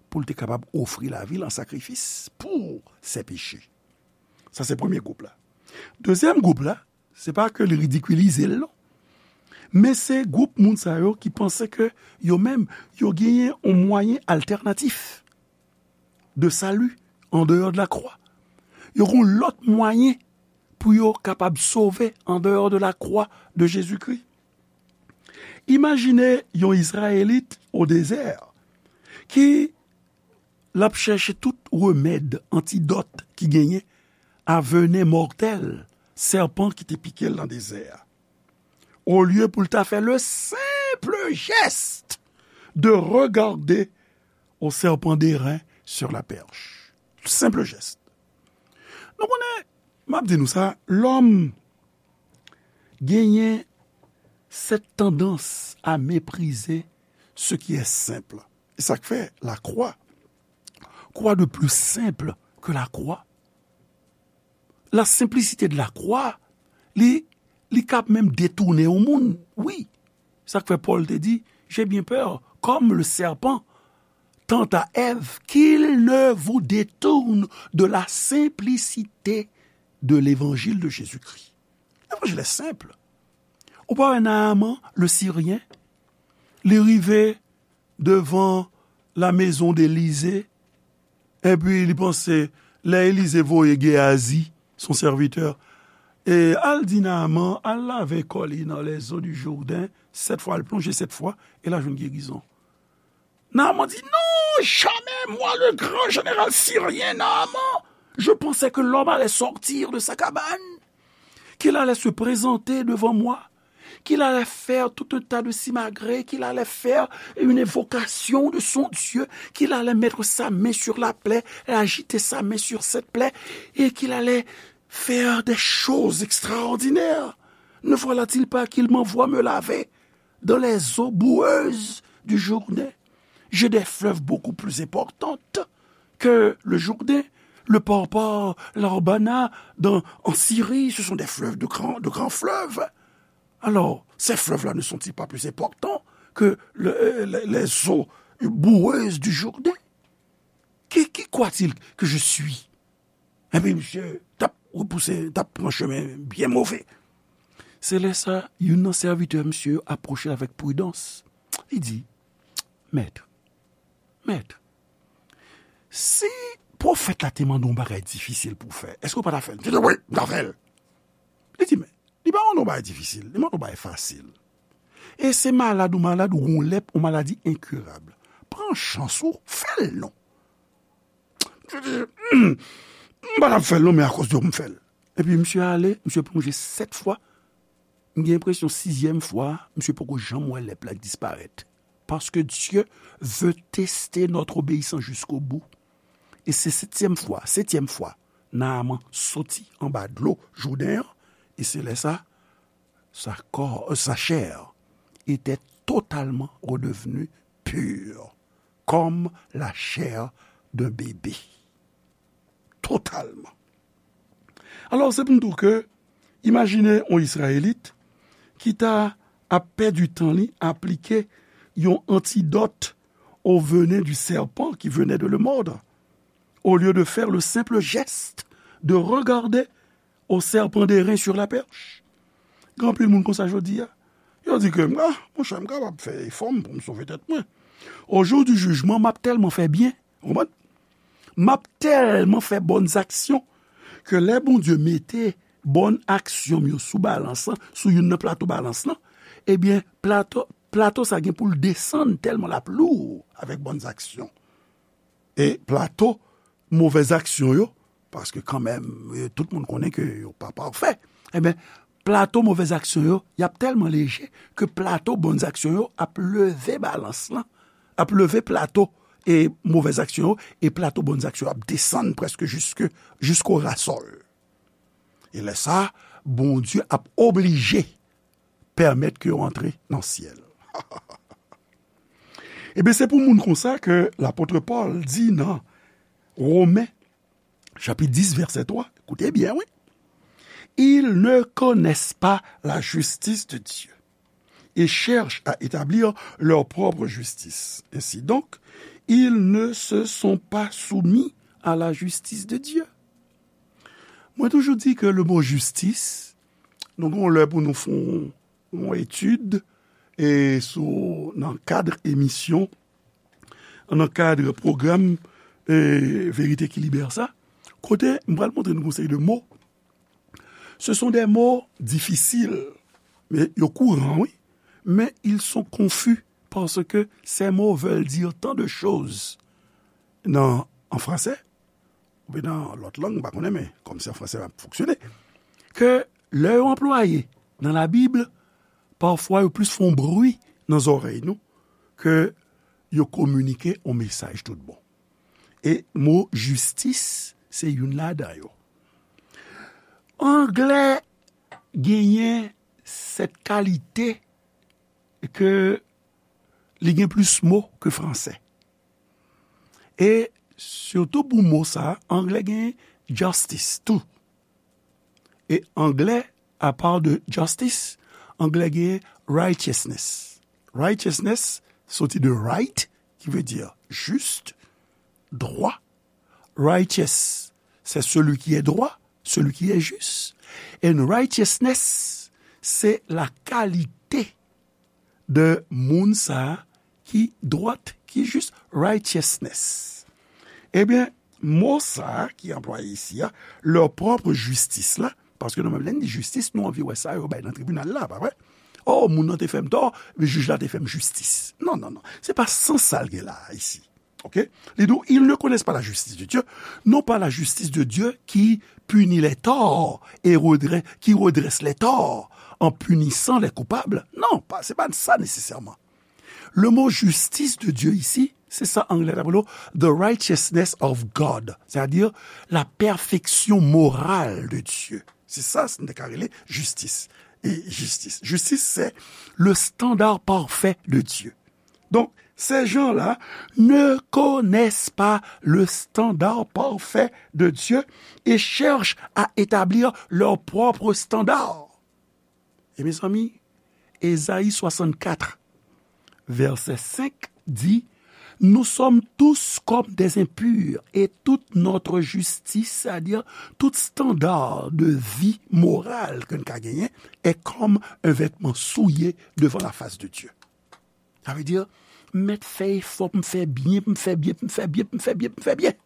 pou l te kapab ofri lavi l an sakrifis pou se peche. Sa se premye gwoup la. Dezyèm gwoup la, se pa ke li ridikilize l non. Men se gwoup moun sa yo ki panse ke yo menm, yo genyen yon mwayen altènatif de sali andeyò de lakwa. Yo gen yon lòt mwayen pou yo kapab sove andeyò de lakwa de Jezikri. Imajine yon Izrayelit o dezè ki l ap chèche tout remèd, antidòt ki genyen a venen mòtèl sèpan ki te pike l nan dezè a. Olye pou l ta fè le senp jès de regarder au serpent d'airain sur la perche. Senp jès. Nou konnen, m ap di nou sa, lòm genyen cette tendance à mépriser ce qui est simple. E sa k fè lakwa, quoi de plus simple que la croix? La simplicité de la croix, li, li kab menm detounen yon moun. Wi, sa k fè Pòl te di, j'ai bien peur, comme le serpent tenta Èv, qu'il ne vous détourne de la simplicité de l'évangile de Jésus-Christ. Levanjil è senp. Ou pa wè Naaman, le Siryen, li rive devan la maison d'Élisée, epi li panse lè Elize voye Geyazi, son sèvitè, e al di Naaman, al lave kò li nan les eaux du Jourdain, sèt fwa, al plonje sèt fwa, e l a jwenn gerizon. Naaman di, non, jamais, moi, le grand général syrien Naaman, je pensais que l'homme allait sortir de sa cabane, qu'il allait se présenter devant moi, qu'il allait faire tout un tas de simagrées, qu'il allait faire une invocation de son Dieu, qu'il allait mettre sa main sur la plaie et agiter sa main sur cette plaie, et qu'il allait faire des choses extraordinaires. Ne voilà-t-il pas qu'il m'envoie me laver dans les eaux boueuses du Jourdain? J'ai des fleuves beaucoup plus importantes que le Jourdain. Le Parpar, l'Arbana, dans, en Syrie, ce sont des fleuves de grands, de grands fleuves. Alors, ces fleuves-là ne sont-ils pas plus importants que le, euh, les, les eaux boueuses du Jourdain? Qui, qui croit-il que je suis? Epi misye t ap repouse, t ap pran chemen byen move. Se lè sa, youn nan sèvitè misye yo apwoche l avèk pridans. Li di, Mèt, mèt, si pwofèt la te mande w yon bagay difisil pou w fè, èske w pa ta fè l? Misye di, wi, m ta fè l. Li di, men, li pa mande w yon bagay difisil, li mande w yon bagay fasil. E se malad ou malad, ou gen yon lèp, yon maladi enkirab. Pran chans ou, fè l non. Misye di, hmm, m pa t ap fè l non, men akoz de w m fè l. Epi misye ale, misye plonje sèt fwa. M gen enpresyon sizyèm fwa, misye poko janm wè lèp la disparèt. Parce que Dieu veut tester notre obéissance jusqu'au bout. E se setyèm fwa, setyèm fwa, Naaman soti anba dlo Jouden an, e se lè sa, sa kò, euh, sa chè était totalement redevenue pure, comme la chair d'un bébé. Totalman. Alò, se pou n di w ke, imajine yon Izrayelit ki ta ap pèdi tan li aplike yon antidòt au venin du serpent qui venait de le mordre, au lieu de faire le simple geste de regarder au serpent d'airain sur la perche. Gen anpil moun konsa jodi a. Yo di ke, ah, monchè, m kapab fè efò m pou m sove tèt mwen. Au jour du jugement, m ap tèlman fè byen, ou konprann? M ap tèlman fè bòn aksyon ke lè Bondye mete bòn aksyon m yo sou balans lan, sou youn nan plato balans lan, ebyen, plato, plato sa gen pou l desann tèlman l ap lou avèk bòn aksyon. E plato movèz aksyon yo, paske kanmenm, e, tout moun konnen ke yo pa pafè. Ebyen, plato movèz aksyon yo, y ap tèlman leje ke plato bòn aksyon yo ap leve balans lan, ap leve plato e movèz aksyon yo, e plato bòn aksyon yo ap desann prèske jiske, jisko rasòl. E lè sa, Bondye ap oblije pèmèt ke yo antre nan syèl. Ebyen, se pou moun konsa ke lapot Pòl di nan Women, chapit dis, vèsè twa, koute byen, wi. Ils ne connaissent pas la justice de Dieu et cherchent à établir leur propre justice. Ainsi donc, ils ne se sont pas soumis à la justice de Dieu. Mwen toujou di ke le mo jistis, nou gen lè pou nou fè yon etid e sou, nan kad emisyon, nan kad pwogram e Verite ki Libère sa, kote m pral montre nou yon seri de mo. Ce sont des mots difficiles, mais yo kouran, wi, mais ils sont confus parce que ces mots veulent dire tant de choses. Nan, an fransè, oubyen nan lòt lang, m pa konnen, men kòm se an fransè m ap fonksyone, ke lè yo anplwaye nan Labib, pafwa yo plis fè yon bri nan zòrèy nou ke yo kominike yon mesaj tout bon. E mo jistis se youn ladan yo. Anglè genyen sèt kalite ke li gen plis mo ke fransè. E sitou pou mo sa, anglè gen justice tou. E anglè, apa de justice, anglè gen righteousness. Righteousness soti de right, ki vle di jis, dwa. Righteous, c'est celui qui est droit, celui qui est juste. And righteousness, c'est la qualité de moun sa a ki dwat, ki jis, righteousness. Ebyen, mo sa a ki anplwaye isi a, leur propre justice la, paske nou menm lè n di jistis, nou anvi wè sa yo bay nan tribinal la, pa vre? Oh, moun nan te fè m tò, men jij la te fè m jistis. Non, non, non. Se pa sans sa l gen la a, isi. Ok? Li di w, ils ne connaissent pas la justice de Dieu, non pas la justice de Dieu qui punit les torts et redresse, qui redresse les torts en punissant les coupables. Non, pa, se pa sa nesesèman. Le mot justice de Dieu isi, se sa anglè t ap rele the righteousness of God, c'est-à-dire la perfection morale de Dieu. Se sa n te ka rele jistis. E jistis. Jistis, c'est le standard parfait de Dieu. Donc, ces gens-là ne connaissent pas le standard parfait de Dieu et cherchent à établir leur propre standard. E mezanmi, Ezayi swasannkat, vèsè senk di, nous sommes tous comme des impurs et toute notre justice, c'est-à-dire tout standard de vie morale ke n ka genyen, est comme un vêtement souillé devant la face de Dieu. Sa vle di, m mèt fè efò pou m fè byen, pou m fè byen, pou m fè byen, pou m fè byen, pou m fè byen.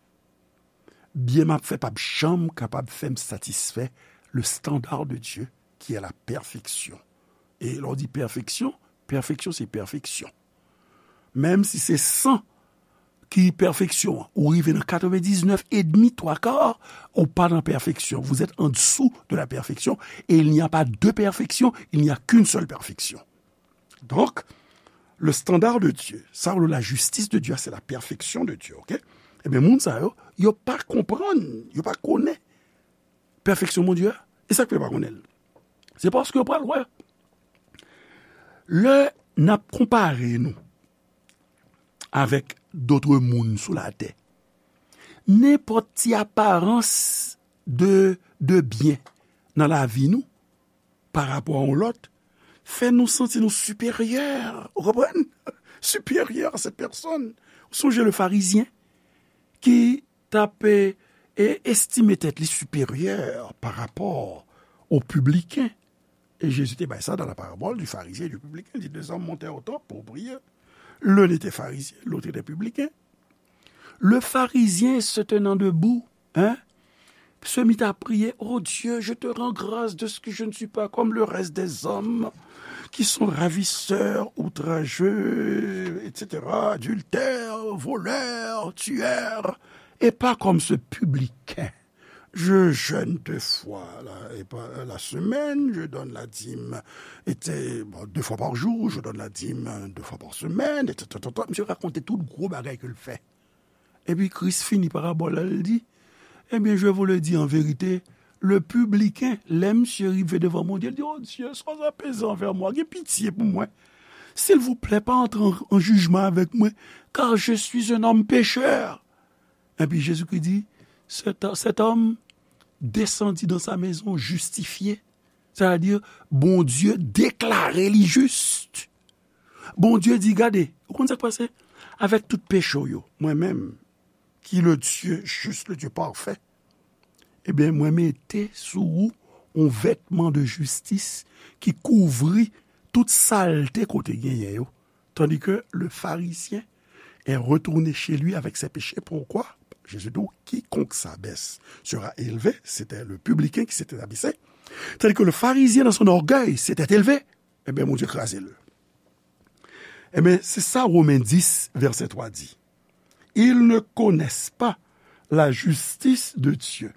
Byen m ap fè p ap janm kapab fè m satisfè le standard de Dieu, qui est la perfection. E lè w di pèfeksyon, pèfeksyon se pèfeksyon. Menm si se san ki pèfeksyon an, ou rive nan katrevendiznèf edmi, twa ka, ou pa nan pèfeksyon. Vous êtes en dessous de la perfection et il n'y a pas deux perfections, il n'y a qu'une seule perfection. Donc, le standard de Dieu, sa w la justice de Dieu, c'est la perfection de Dieu, ok? Ebyen, moun sa yo, yo pa konprann, yo pa konnen pèfeksyon Bondye a. E sa k fè yo pa konnen l? Se paske yo pral wè. Lè n ap konpare nou avèk dòt moun sou latè, nenpòt ti aparans de, de byen nan lavi nou, pa rapò a yon lòt, fè nou santi nou siperyè, ou konprann? Siperyè a sèt pèsòn. Ou sonje le farizyen ki t ap, e, e, estime tèt li siperyè pa rapò o pibliken. E Jezi te bay sa dans la parabole du pharisien et du publicain. Il dit, deux hommes montèrent au temple pour prier. L'un était pharisien, l'autre était publicain. Le pharisien se tenant debout, hein, se mit à prier, oh Dieu, je te rends grâce de ce que je ne suis pas comme le reste des hommes qui sont ravisseurs, outrageux, et cetera, adultères, voleurs, tueurs, et pas comme ce publicain. Je jeûne deux fois la, et pas, la semaine, je donne la dîme, et, bon, deux fois par jour, je donne la dîme deux fois par semaine, et cetera. Misye rakonte tout gwo bagay ke l fè. Epi Kris fini parabòl la, l di, eh bien, je vous le dis en vérité, Le pibliken, lè misye rive devan Bondye, li di, "O Dye, sois apaisé envers moi, gen pitye pou mwen. Silvouplè, pa antre an, an jijman avèk mwen, car je suis un homme pécheur." Epi Jezikri di, cet, cet homme descendit dans sa maison justifié. Sa vle di, Bondye deklare li jis. Bondye di, "Gade, ou konn sa k pase? Avèk tout peche w yo, mwen menm, ki le Dieu juste, le Dieu parfait, ebyen, mwen mete sou ou yon vètman de jistis ki kouvri tout salte kote genyen yo." Tandis que le pharisien est retourné chez lui avec ses péchés. Pourquoi? Jésus dit, quiconque s'abaisse sera élevé. C'était le publicain qui s'était abaissé. Tandis que le pharisien, dans son orgueil, s'était élevé. Ebyen, Bondye kraze l. Ebyen, se sa Women dis, vèsè twa di. Ils ne connaissent pas la justice de Dieu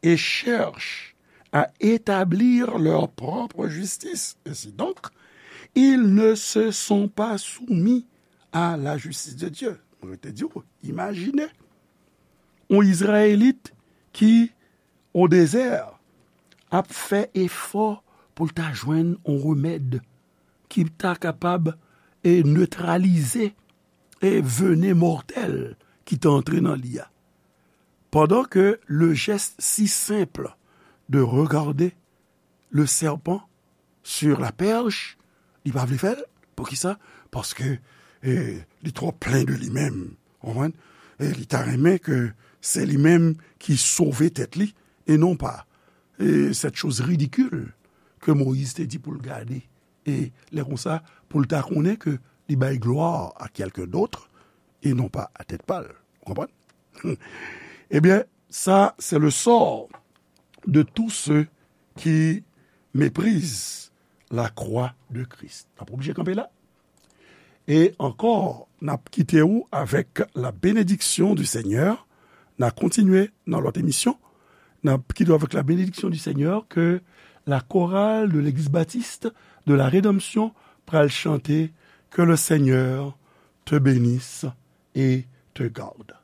et cherchent à établir leur propre justice. Ainsi donc, ils ne se sont pas soumis à la justice de Dieu. Mwen te di w, imajine yon Izrayelit ki o dezè ap fè efò pou l ta jwenn yon remèd ki ta kapab e netralize e venen mòtèl ki ta antre nan li a. Pendant que le geste si simple de regarder le serpent sur la perche, li pa vle fè l. Poukisa? Paske eh, li twò plen de li menm. Ou konprann? E li ta renmen ke se li menm ki sove tèt li, e non pa eh, cette chose ridicule que Moïse te di pou l gade. E lè konsa, pou l ta konnen ke li bay glwa a quelqu'un d'autre, e non pa a tèt pa l. Ou konprann? Ebyen, sa, c'est le sort de tous ceux qui méprisent la croix de Christ. N ap oblije kanpe la. E ankò, n ap kite w avèk la bénédiction du Seigneur. N a kontinye nan lòt emisyon. N ap kite w avèk la bénédiction du Seigneur que la chorale de l'Église baptiste de la Rédemption pral chante. Que le Seigneur te bénisse et te garde.